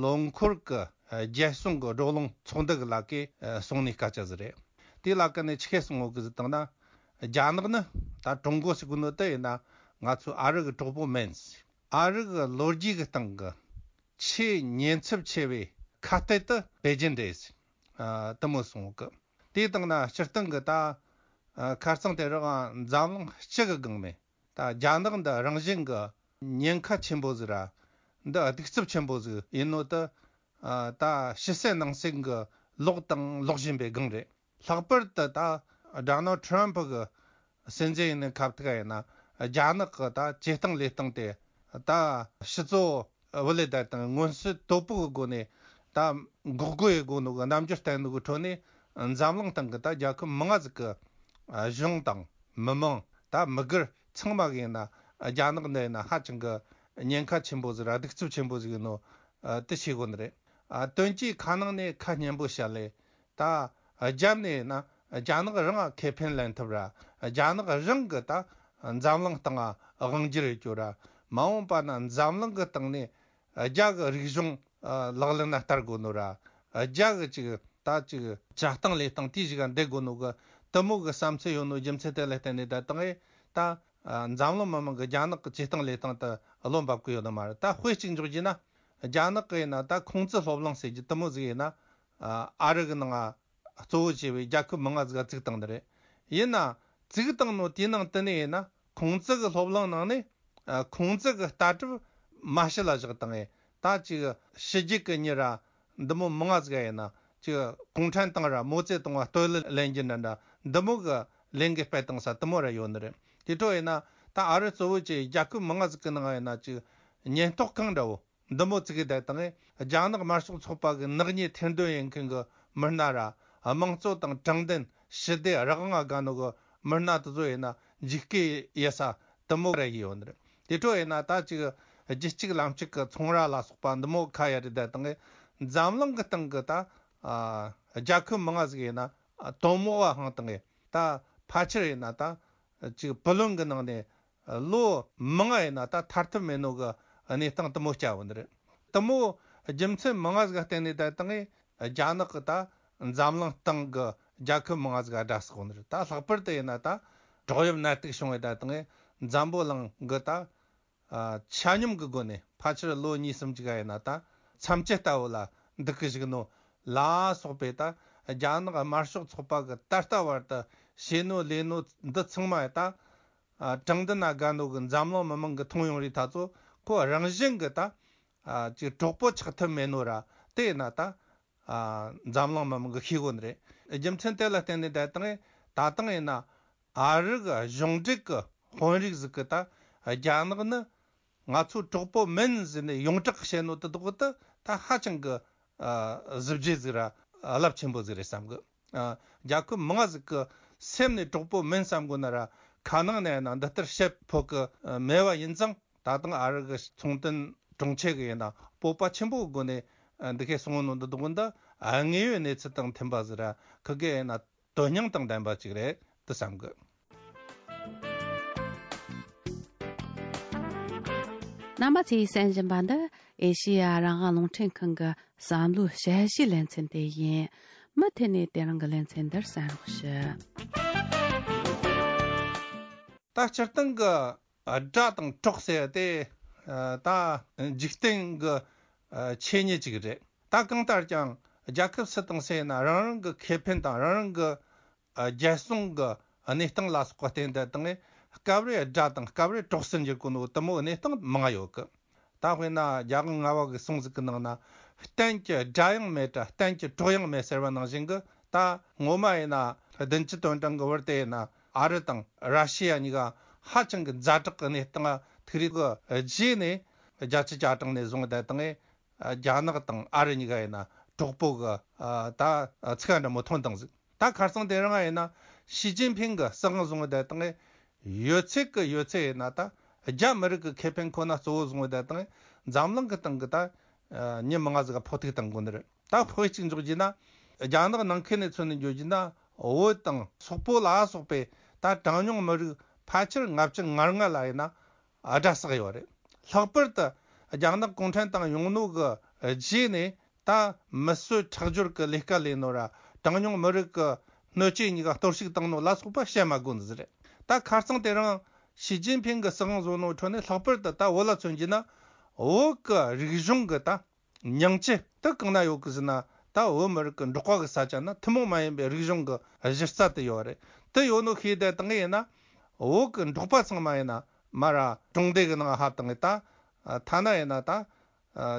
ལོ་འཁོར་གི་རྒྱལ་སྲུང་གི་བགྲོ་གླེང་ཚོགས་འདུ་གི་ལ་ཀའི་གསུང་ནས་སྐད་ཆ་ཟིག་རེད། དེའི་ལ་ཀ་ནས་ཆི་ཁས་གསུང་ཡོད་གི་ཟིག་བཏང་ན། རྒྱ་ནག་ནི་ད་ཀྲུང་གོ་ཟེར་གི་ནོ་དེ་ཡིན་ན་ང་ཚོའི་ཨ་རི་གི་གྲོགས་པོ་མིན། ཨ་རི་གི་ལོ་རྒྱུས་གི་སྟེང་གི་ཆེས་ཉེན་ཚབས་ཆེ་བའི་ཁ་གཏད་དེ་པེ་ཅིན་རེད། ཨ་དེ་མོ་གསུང་གི། དེའི་སྟེང་ན་སྤྱིར་བཏང་གི་ད་ཨ་ཁ་རྩང་དེ་རིང་འཛམ་གླིང་སྤྱི་གི་སྒང་ནས་ད་རྒྱ་ནག་འདི་རང་བཞིན་གི་ཉེན་ཁ་ཆེན་པོ་ཟིག་ར། འདི་གདུག་རྩུབ་ཆེན་པོ་ཟིག་ཡིན་ནོ་དེ་ཨ་ད་ཕྱི་གསལ་ནང་གསལ་གི་ལོག་དང་ལོག་བཞིན་པའི་སྒང་རེད། ལྷག་པར་དུ་ད་ཌོ་ནལ་ཊྲམ་ཕ་གི་སྲིད་འཛིན་ཡིན་ནི་ཁ་ཐུག་ཡིན་ན། རྒྱ་ནག་གི་ད་བྱེད་སྟངས་ལས་སྟངས་དེ་ད་ཕྱི་ཚོ་བུ་ལས་ད་དང་མངོན་གསལ་དོད་པོ་གི་སྒོ་ནས་ད་འགོག་རྒོལ་ཡི་སྒོ་ནོ་གི་རྣམ་འགྱུར་བསྟན་ནོ་གི་ཁྲོད་ནས། འཛམ་གླིང་སྟེང་གི་ད་རྒྱལ་ཁབ་མང་ང་ཟིག་གི་གཞུང་དང་མི་མང་ད་མི་སྒེར་ཚང་མ་གི་ཡིན་ན་རྒྱ་ནག་འདི་ཡིན་ན་ཧ་ཅང་གི་ཉེན་ཁ་ཆེན་པོ་ཟིག་ར་གདུག་རྩུབ་ཆེན་པོ་ཟིག་ཡིན་ནོ་དེ་ཤེས་དགོས་ནི་རེད། དོན་གྱིས་ཁ་ནང་ནས་ཁ་སྙན་པོ་བཤད་ལེ། ད་རྒྱབ་ནས་ཡིན་ན་རྒྱ་ནག་རང་ང་ཁེ་ཕན་ལེན་ཐུབ་ར། རྒྱ་ནག་རང་གི་ད་འཛམ་གླིང་སྟེང་ང་དབང་སྒྱུར་ཡོད་རྒྱུ་ར། མ་འོངས་པ་ན་འཛམ་གླིང་གི་སྟེང་ནས་རྒྱ་གི་རིག་གཞུང་ལག་ལེན་ན་བསྟར་དགོས་ནོ་ར། རྒྱ་གི་ཅིག་ད་ཅིག་བྱ་སྟངས་ལས་སྟངས་དེའི་ཞིག་ག་འདེད་དགོས་ནོ་གི་དེ་མོ་གི་བསམ་ཚུལ་ཡོད་ནོ་རྒྱུ་མཚན་དེ་ལ་བརྟེན་ནས་ད་དང་ངས་ད་འཛམ་གླིང་མི་མང་གི་རྒྱ་ནག་གི་བྱེད་སྟངས་ལས་སྟངས་དེ་བློ་འབབ་གི་ཡོད་ནི་མ་རེད། ད་དཔེ་གཅིག་འཇོག་རྒྱུ་ན། རྒྱ་ནག་གི་ཡིན་ན་ད་ཁུང་ཙི་སློབ་གླིང་ཟེར་རྒྱུ་དེ་མོ་ཟིག་ཡིན་ན། ཨ་རི་གི་ནང་ང་གཙོ་བོ་བྱས་པའི་རྒྱལ་ཁབ་མང་ང་ཟིག་ག་བཙུགས་བཏང་ནི་རེད། ཡིན་ན་བཙུགས་བཏང་ནོ་དེའི་ནང་དེ་ནས་ཡིན་ན་ཁུང་ཙི་གི་སློབ་གླིང་ནང་ནས་ཨ་ཁུང་ཙི་གི་ལྟ་གྲུབ་མ་ཕྱི་ལ་བཞག་བཏང་ངས། ད་ཅིག་ཕྱི་རྒྱལ་གི་མྱི་ར་འདི་མོ་མང་ང་ཟིག་ག་ཡིན་ན་ཅིག་གུང་ཁྲན་ཏང་ར་མའོ་ཙེ་ཏུང་ང་བསྟོད་གླུ་ལེན་རྒྱུ་འདྲ་འདྲ་འདི་མོ་གི་ལས་འགུལ་སྤེལ་བཏང་ས་དེ་མོ་ར་ཡོད་ནི་རེད། དེ་འཕྲོ་ཡིན་ན་ད་ཨ་རི་གཙོ་བོ་བྱས་རྒྱལ་ཁབ་མང་ང་ཟིག་གི་ནང་ཡིན་ན་ཅིག་ཉེན་རྟོག་ཁང་འདྲ་བོ། འདི་མོ་བཙུགས་ཡོད་དེ་དང་རྒྱ་ནག་དམར་ཤོག་ཚོགས་པ་གི་ནག་ཉེས་ཐེར་འདོན་ཡེད་མཁན་གི་མི་སྣ་ར། དམངས་གཙོ་དང་དྲང་བདེན་ཞི་བདེ་རང་དབང་དགའ་ནོ་གི་མི་སྣ་དེ་ཚོ་ཡིན་ན་འཇིགས་སྐུལ་ཡེད་ས་དེ་མོ་ར་ཡོད་ནི་རེད། དེ་འཕྲོ་ཡིན་ན་ད་ཅིག་རྒྱུད་གཅིག་ལམ་གཅིག་གི་ཚོང་ར་ལ་སོགས་པ་འདི་མོ་ཁ་ཡ་རེད་དེ་དང་འཛམ་གླིང་གི་སྟེང་གི་ད་ཨ་རྒྱལ་ཁབ་མང་ང་ཟིག་ཡིན་ན་དོན་མོ་བ་ཧང་དང་ད་ཕལ་ཆེར་ཡིན་ན་ད་ཅིག་བུ་ལོན་གི་ནང་ནས། ལོ་མང་ང་ཡིན་ན་ད་ཐར་ཐབས་མེད་ནོ་གི་གནས་སྟངས་དེ་མོ་སྐྱེ་བ་ནི་རེད། དེ་མོ་རྒྱུ་མཚན་མང་ང་ཟིག་ག་བརྟེན་ནས་ད་དང་རྒྱ་ནག་གི་ད་འཛམ་གླིང་སྟེང་གི་རྒྱལ་ཁབ་མང་ང་ཟིག་ག་དགྲ་བསགས་ནི་རེད། ད་ལྷག་པར་དུ་ཡིན་ན་ད་བྲག་གཡབ་ནད་དུག་བྱུང་བའི་ད་དང་འཛམ་བུ་གླིང་གི་ད་ཆ་སྙོམས་གི་སྒོ་ནས་ཕལ་ཆེར་ལོ་གཉིས་གསུམ་ཅིག་ག་ཡིན་ན་ད་མཚམས་ཆད་ལྟ་བུ་ལ་འདུག་གི་བཞུགས་ནོ་ལ་སོགས་པའི་ད་རྒྱ་ནག་དམར་ཤོག་ཚོགས་པ་གི་ད་ལྟ་བར་དུ་བྱས་ནོ་ལས་ནོ་འདི་ཚང་མ་ད། ཨ་དྲང་བདེན་ན་དགའ་ནོ་གི་འཛམ་གླིང་མི་མང་གི་མཐོང་ཡོང་རིགས་ད་ཚོ་ཁོ་རང་བཞིན་གི་ད་ཨ་ཅིག་གྲོགས་པོ་ཆགས་ཐུབ་མེད་ནོ་ར། དེ་ཡིན་ན་ད་ཨ་འཛམ་གླིང་མི་མང་གི་ཤེས་གོ་ནི་རེད། རྒྱུ་མཚན་དེ་ལ་བརྟེན་ནས་ད་དང་ད་དང་ཡིན་ན་ཨ་རི་གི་གཞུང་འབྲེལ་གི་དཔོན་རིགས་ཟིག་གི་ད་རྒྱ་ནག་ནི་ང་ཚོ་གྲོགས་པོ་མིན་ཟེར་ནས་ཡོངས་གྲགས་བཤད་ནོ་དེ་དག་དེ་ད་ཧ་ཅང་གི་ཨ་གཟི་བརྗིད་ཟིག་ར་རླབས་ཆེན་པོ་ཟིག་རེད་བསམ་གི། ཨ་རྒྱལ་ཁབ་མང་ང་ཟིག་གི་སེམས་ནས་གྲོགས་པོ་མིན་བསམ་དགོས་ན་ར་ཁ་ནང་ནས་ཡིན་ན་འདི་ལྟར་བཤད་ཕོད་གི་མེད་པ་ཡིན་ཙང་། ད་དང་ཨ་རི་གི་ཚོང་དོན་དྲུང་ཆེ་གི་ཡིན་ན་སྤོབས་པ་ཆེན་པོའི་སྒོ་ནས་འདི་ཁའི་གསུང་ནོ་འདི་དགོས་འདི་དངོས་ཡོད་གནས་ཚུལ་དང་མཐུན་པ་ཟིག་ར་ཁི་གེ་ཡིན་ན་དོན་སྙིང་དང་ལྡན་པ་ཅིག་རེད་དུ་བསམ་གི། རྣམ་པ་ཚོས་གསན་བཞིན་པ་འདི་ཨེ་ཤེ་ཡ་རང་དབང་རླུང་འཕྲིན་ཁང་གི་བསམ་བློའི་དཔྱད་གཞིའི་ལེ་ཚན་དེ་ཡིན། མུ་མཐུད་ནས་དེ་རིང་གི་ལེ་ཚན་འདིར་གསན་རོགས་ཞུ། ད་སྤྱིར་བཏང་གི་དགྲ་དང་གྲོགས་ཟེར་དེ་ད་འཇིག་རྟེན་གི་ཆོས་ཉིད་ཅིག་རེད། ད་གང་ལྟར་ཀྱང་རྒྱལ་ཁབ་སུ་དང་སུ་ཡིན་ན་རང་རང་གི་ཁེ་ཕན་དང་རང་རང་གི་རྒྱལ་སྲུང་གི་གནས་སྟངས་ལ་སོགས་པ་བརྟེན་ཏེ་དང་སྐབས་རེ་དགྲ་དང་སྐབས་རེ་གྲོགས་སུ་འགྱུར་གོ་ནོ་དུ་མོ་གནས་སྟངས་མང་ཡོད་གི། ད་དཔེར་ན་རྒྱལ་དབང་ལྔ་པ་གི་གསུང་ཟིག་གི་ནང་ན། གཏན་གྱི་དགྲ་ཡང་མེད་དྲ་གཏན་གྱི་གྲོགས་ཡང་མེད་ཟེར་བ་ནང་བཞིན་གི། ད་ངོ་མ་ཡིན་ན་བདུན་ཅུ་དོན་གྲངས་གི་བར་དེ་ཡིན་ན་ཨ་རི་དང་ར་ཤི་ཡ་གཉིས་ཀ་ཧ་ཅང་གི་ཛ་དྲག་གི་གནས་སྟངས་ཐུག་རིགས་གི་རྗེས་ནས་བརྒྱད་ཅུ་གྱ་གྲངས་ནས་བཟུང་བསྡད་དང་། རྒྱ་ནག་དང་ཨ་རི་གཉིས་ཀ་ཡིན་ན་གྲོགས་པོ་གི་ད་ཚིག་འདྲ་མོ་ཐོན་བཏང་ཟིག། ད་ཁ་སང་དེ་རིང་ཡིན་ན་ཞི་ཅིན་ཕིང་གི་སྲིད་དབང་བཟུང་བསྡད་དང་། ཡོད་ཚད་ཀྱི་ཡོད་ཚད་ཡིན་ན་ད་རྒྱ་མི་རིགས་ཀྱི་ཁེ་ཕན་ཁོ་ན་གཙོ་བོ་བཟུང་བ་དེ་དང་འཛམ་གླིང་གི་སྟེང་གི་ད་མྱི་མང་ང་ཟིག་ག་ཕོག་ཐུག་བཏང་དགོས་ནི་རེད། ད་དཔེ་གཅིག་འཇོག་རྒྱུ་ན། རྒྱ་ནག་ནང་ཁུལ་ནས་མཚོན་ནས་འཇོག་རྒྱུ་ན། བོད་དང་སོག་པོ་ལ་སོགས་པའི་ད་གྲངས་ཉུང་མི་རིགས་ཕལ་ཆེར་ལྔ་བཅུ་ང་ལྔ་ལ་ཡིན་ན་དགྲ་བསགས་ཡོད་རེད། ལྷག་པར་དུ་རྒྱ་ནག་གུང་ཁྲན་ཏང་ཡོང་ནོ་གི་རྗེས་ནས། ད་མི་གསོད་ཁྲག་སྦྱོར་གྱི་ལས་ཀ་ལས་ནོ་ར་གྲངས་ཉུང་མི་རིགས་ཀྱི་སྣོད་བཅུད་གཉིས་ཀ་གཏོར་བཤིག་བཏང་ནོ་ལ་སོགས་པ་བཤད་མ་དགོས་ནི་ཟིག་རེད། ད་ཁ་སང་དེ་རིང་ཞི་ཅིན་ཕིང་གི་སྲིད་དབང་བཟོ་ནོ་ཁྲོད་ནས་ལྷག་པར་དུ་ད་བོད་ལ་མཚོན་རྒྱུ་ན། བོད་ཀྱི་རིག་གཞུང་གི་ད་ཉིང་བཅུད་དེ་གང་ན་ཡོད་གི་ཟེར་ན། ད་བོད་མི་རིགས་ཀྱི་འབྲོག་པ་གི་ས་ཆ་ན་ཐུན་མོང་མ་ཡིན་པའི་རིག་གཞུང་གི་གཞི་རྩ་དེ་ཡོད་རེད། དེ་ཡོད་ནོ་ཤེས་བསྡད་དང་ཡིན་ན། བོད་ཀྱི་འབྲོག་པ་ཚང་མ་ཡིན་ན་མ་ར་གྲོང་སྡེ་གི་ནང་ཧ་བཏང་ད། ཐ་ན་ཡིན་ན་ད།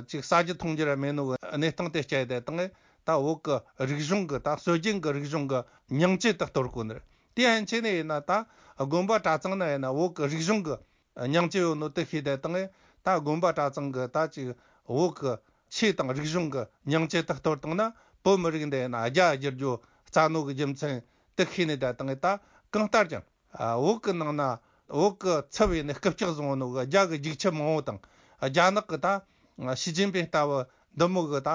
ཅིག་ཟ་རྒྱུ་འཐུང་རྒྱུ་ར་མེད་ནོ་གི་གནས་སྟངས་དེ་སྐྱེལ་ཏེ་དང་། ད་བོད་ཀྱི་རིག་གཞུང་གི་ད་སྲོལ་རྒྱུན་གྱི་རིག་གཞུང་གི་ཉིང་བཅུད་དག་གཏོར་གོ་ནི་རེད། དེ་ཡན་ཆད་ནས་ཡིན་ན་ད་དགོན་པ་གྲྭ་ཚང་ན་ཡིན་ན་བོད་ཀྱི་རིག་གཞུང་གི་ཉིང་བཅུད་ཡོད་ནོ་དེ་ཤེས་ཏེ་དང་། ད་དགོན་པ་གྲྭ་ཚང་གི་ད་ཅིག་བོད་ཀྱི་ཆོས་དང་རིག་གཞུང་གི་ཉིང་བཅུད་དག་གཏོར་བཏང་ན། བོད་མི་རིགས་འདི་ཡིན་ན་རྒྱ་བསྒྱུར་རྒྱུ་རྩ་ནོ་གི་རྒྱུ་མཚན་དེ་ཤེས་ནས་ད་དང་། ད་གང་ལྟར་ཀྱང་། བོད་ཀྱི་ནང་ན་བོད་ཀྱི་ཚབ་ཡིན་ནས་རྐུབ་བཀྱག་བཟུང་ནོ་གི་རྒྱ་གི་རྒྱུག་ཁྱི་མང་བོ་དང་། རྒྱ་ནག་གི་ད་ཞི་ཅིན་ཕིང་ལྟ་བུ་འདི་མོ་གི་ད་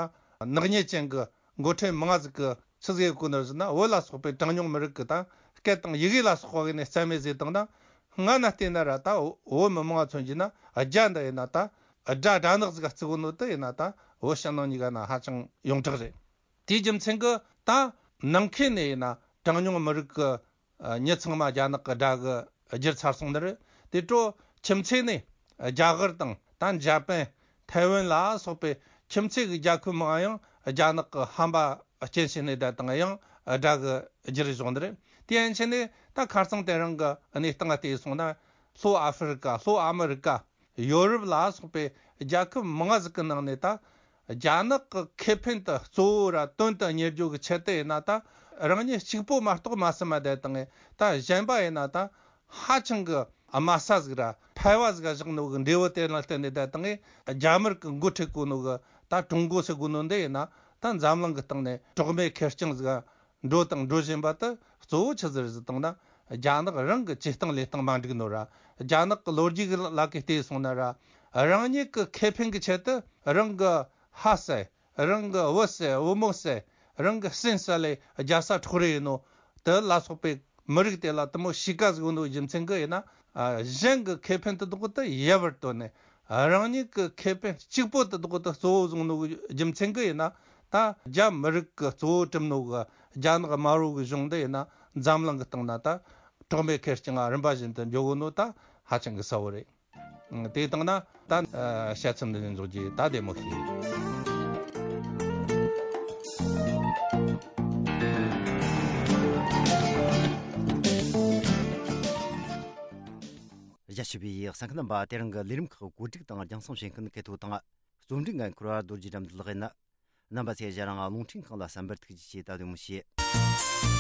ནག་ཉེས་ཅན་གི་འགོ་ཁྲིད་མང་ཟིག་གི་ཆི་ཟིག་གོ་ནར་ཟེར་ན། བོད་ལ་སོགས་པའི་གྲངས་ཉུང་མི་རིགས་ཀྱི་ད་སྐད་དང་ཡི་གེ་ལ་སོགས་པ་གི་ནས་རྩ་མེད་ཟིག་བཏང་ན། སྔ་ན་བལྟས་ན་ར་ད་བོད་མི་མང་མཚོན་གྱི་ན་རྒྱ་འདི་ཡིན་ན་ད་དགྲ་དགྲ་ནག་ཟིག་ག་བརྩི་གོ་ནོ་དེ་ཡིན་ན། ད་བོད་ཕྱི་ནང་གཉིས་ཀ་ན་ཧ་ཅང་ཡོངས་གྲགས་རེད། དེའི་རྒྱུ་མཚན་གྱི་ད་ནང་ཁུལ་ནས་ཡིན་ན་གྲངས་ཉུང་མི་རིགས་ཀྱི་མྱི་ཚང་མ་རྒྱ་ནག་གི་དགྲ་གི་བསྒྱུར་ཚར་སོང་ནི་རེད། དེ་འཕྲོ་ཁྱིམ་མཚེས་ནས་རྒྱ་གར་དང་ད་འཇར་པན། ཐའེ་ཝན་ལ་སོགས་པའི་ཁྱིམ་མཚེས་ཀྱི་རྒྱལ་ཁབ་མང་ཡང་རྒྱ་ནག་གི་ཧམ་པ་སྐྱེན་བཞིན་ནས་བསྡད་དང་ཡང་དགྲ་གི་རྒྱུ་རུ་བཟུང་ནི་རེད། དེ་ཡན་ཆད་ནས་ད་ཁ་སང་དེ་རིང་གི་གནས་སྟངས་བལྟས་སོང་ན། ལྷོ་ཨ་ཧྥེ་རི་ཀ། ལྷོ་ཨ་མི་རི་ཀ། ཡོ་རོབ་ལ་སོགས་པའི་རྒྱལ་ཁབ་མང་ཟིག་གི་ནང་ནས་ད་རྒྱ་ནག་གི་ཁེ་ཕན་དུ་གཙོ་བོ་ར་དོན་དུ་གཉེར་རྒྱུ་གི་ཆེད་དུ་ཡིན་ན། ད་རང་ཉིད་གཅིག་པོ་མ་གཏོགས་མ་བསམ་མ་བསྡད་དང་། ད་གཞན་པ་ཡིན་ན་ད་ཧ་ཅང་གི་དམའ་ས་ཟིག་ར་ཕལ་བ་ཟིག་ག་བཞག་ནོ་གི་འབྲས་བུ་དེ་ལ་བརྟེན་ནས་བསྡད་དང་། རྒྱ་དམར་གི་འགོ་ཁྲིད་གོ་ནོ་གི་ད་ཀྲུང་གོ་ཟེར་གོ་ནོ་འདི་ཡིན་ན། ད་འཛམ་གླིང་གི་སྟེང་ནས་གྲོགས་མེད་ཁེར་རྐྱང་ཟིག་ག་འགྲོ་དང་འགྲོ་བཞིན་པ་དེ་གཙོ་བོ་ཆི་ཟིག་རེད་ཟེར་བཏང་ན། རྒྱ་ནག་རང་གི་བྱེད་སྟངས་ལས་སྟངས་མ་འགྲིག་ནོ་ར། རྒྱ་ནག་གི་ལོ་རྒྱུས་ཀྱི་ལ་ཀའི་བལྟས་སོང་ན་ར། རང་ཉིད་ཀྱི་ཁེ་ཕན་གྱི་ཆེད་དུ་རང་གི་ཕ་བསད། རང་གི་བུ་བསད། བུ་མོ་བསད། རང་གི་སྲིན་བསད་ལས་རྒྱལ་ས་འཕྲོག་རེས་ཡིན་ནོ། དེ་ལ་སོགས་པའི་མི་རིགས་དེ་ལ་དེ་མོ་གཤིས་ཀ་ཟིག་ཡོད་ནོ་རྒྱུ་མཚན་གྱི་ཡིན་ན། གཞན་གྱི་ཁེ་ཕན་དེ་དག་དེ་ཡལ་བར་དོར་ནས། རང་ཉིད་ཀྱི་ཁེ་ཕན་གཅིག་པོ་དེ་དག་དེ་གཙོ་བོ་བཟུང་ནོ་རྒྱུ་མཚན་གྱི་ཡིན་ན། ད་རྒྱ་མི་རིགས་ཀྱི་གཙོ་བོ་གྲུབ་ནོ་གི་རྒྱ་ནག་དམར་པོ་གི་གཞུང་འདི་ཡིན་ན། འཛམ་གླིང་གི་སྟེང་ན་ད་གྲོགས་མེད་ཁེར་རྐྱང་རིམ་པ་བཞིན་དུ་འགྱོ་གོ་ནོ་ད་ཧ་ཅང་གི་གསལ་བོ་རེད། དེ་བཏང་ན་ད་དཔྱད་མཚམས་འདི་ནས་འཇོག་རྒྱུ་ད་བདེ་མོ་ཞིག། རྒྱ་ཆེ་བའི་གསན་མཁན་རྣམ་པ། དེ་རིང་གི་ལས་རིམ་ཁག་བཀོད་སྒྲིག་དང་རྒྱང་སྲིང་བྱེད་མཁན་སྐལ་ཐོག་དང་། རྩོམ་སྒྲིག་འགན་འཁུར་བ་རྡོ་རྗེ་དགྲ་འདུལ་ལགས་ཡིན། རྣམ་པ་ཚོས་ང་རང་རླུང་འཕྲིན་ཁང་ལ་གསན་པར་ཐུགས་རྗེ་ཆེ། ད་བདེ་མོ་བྱོས།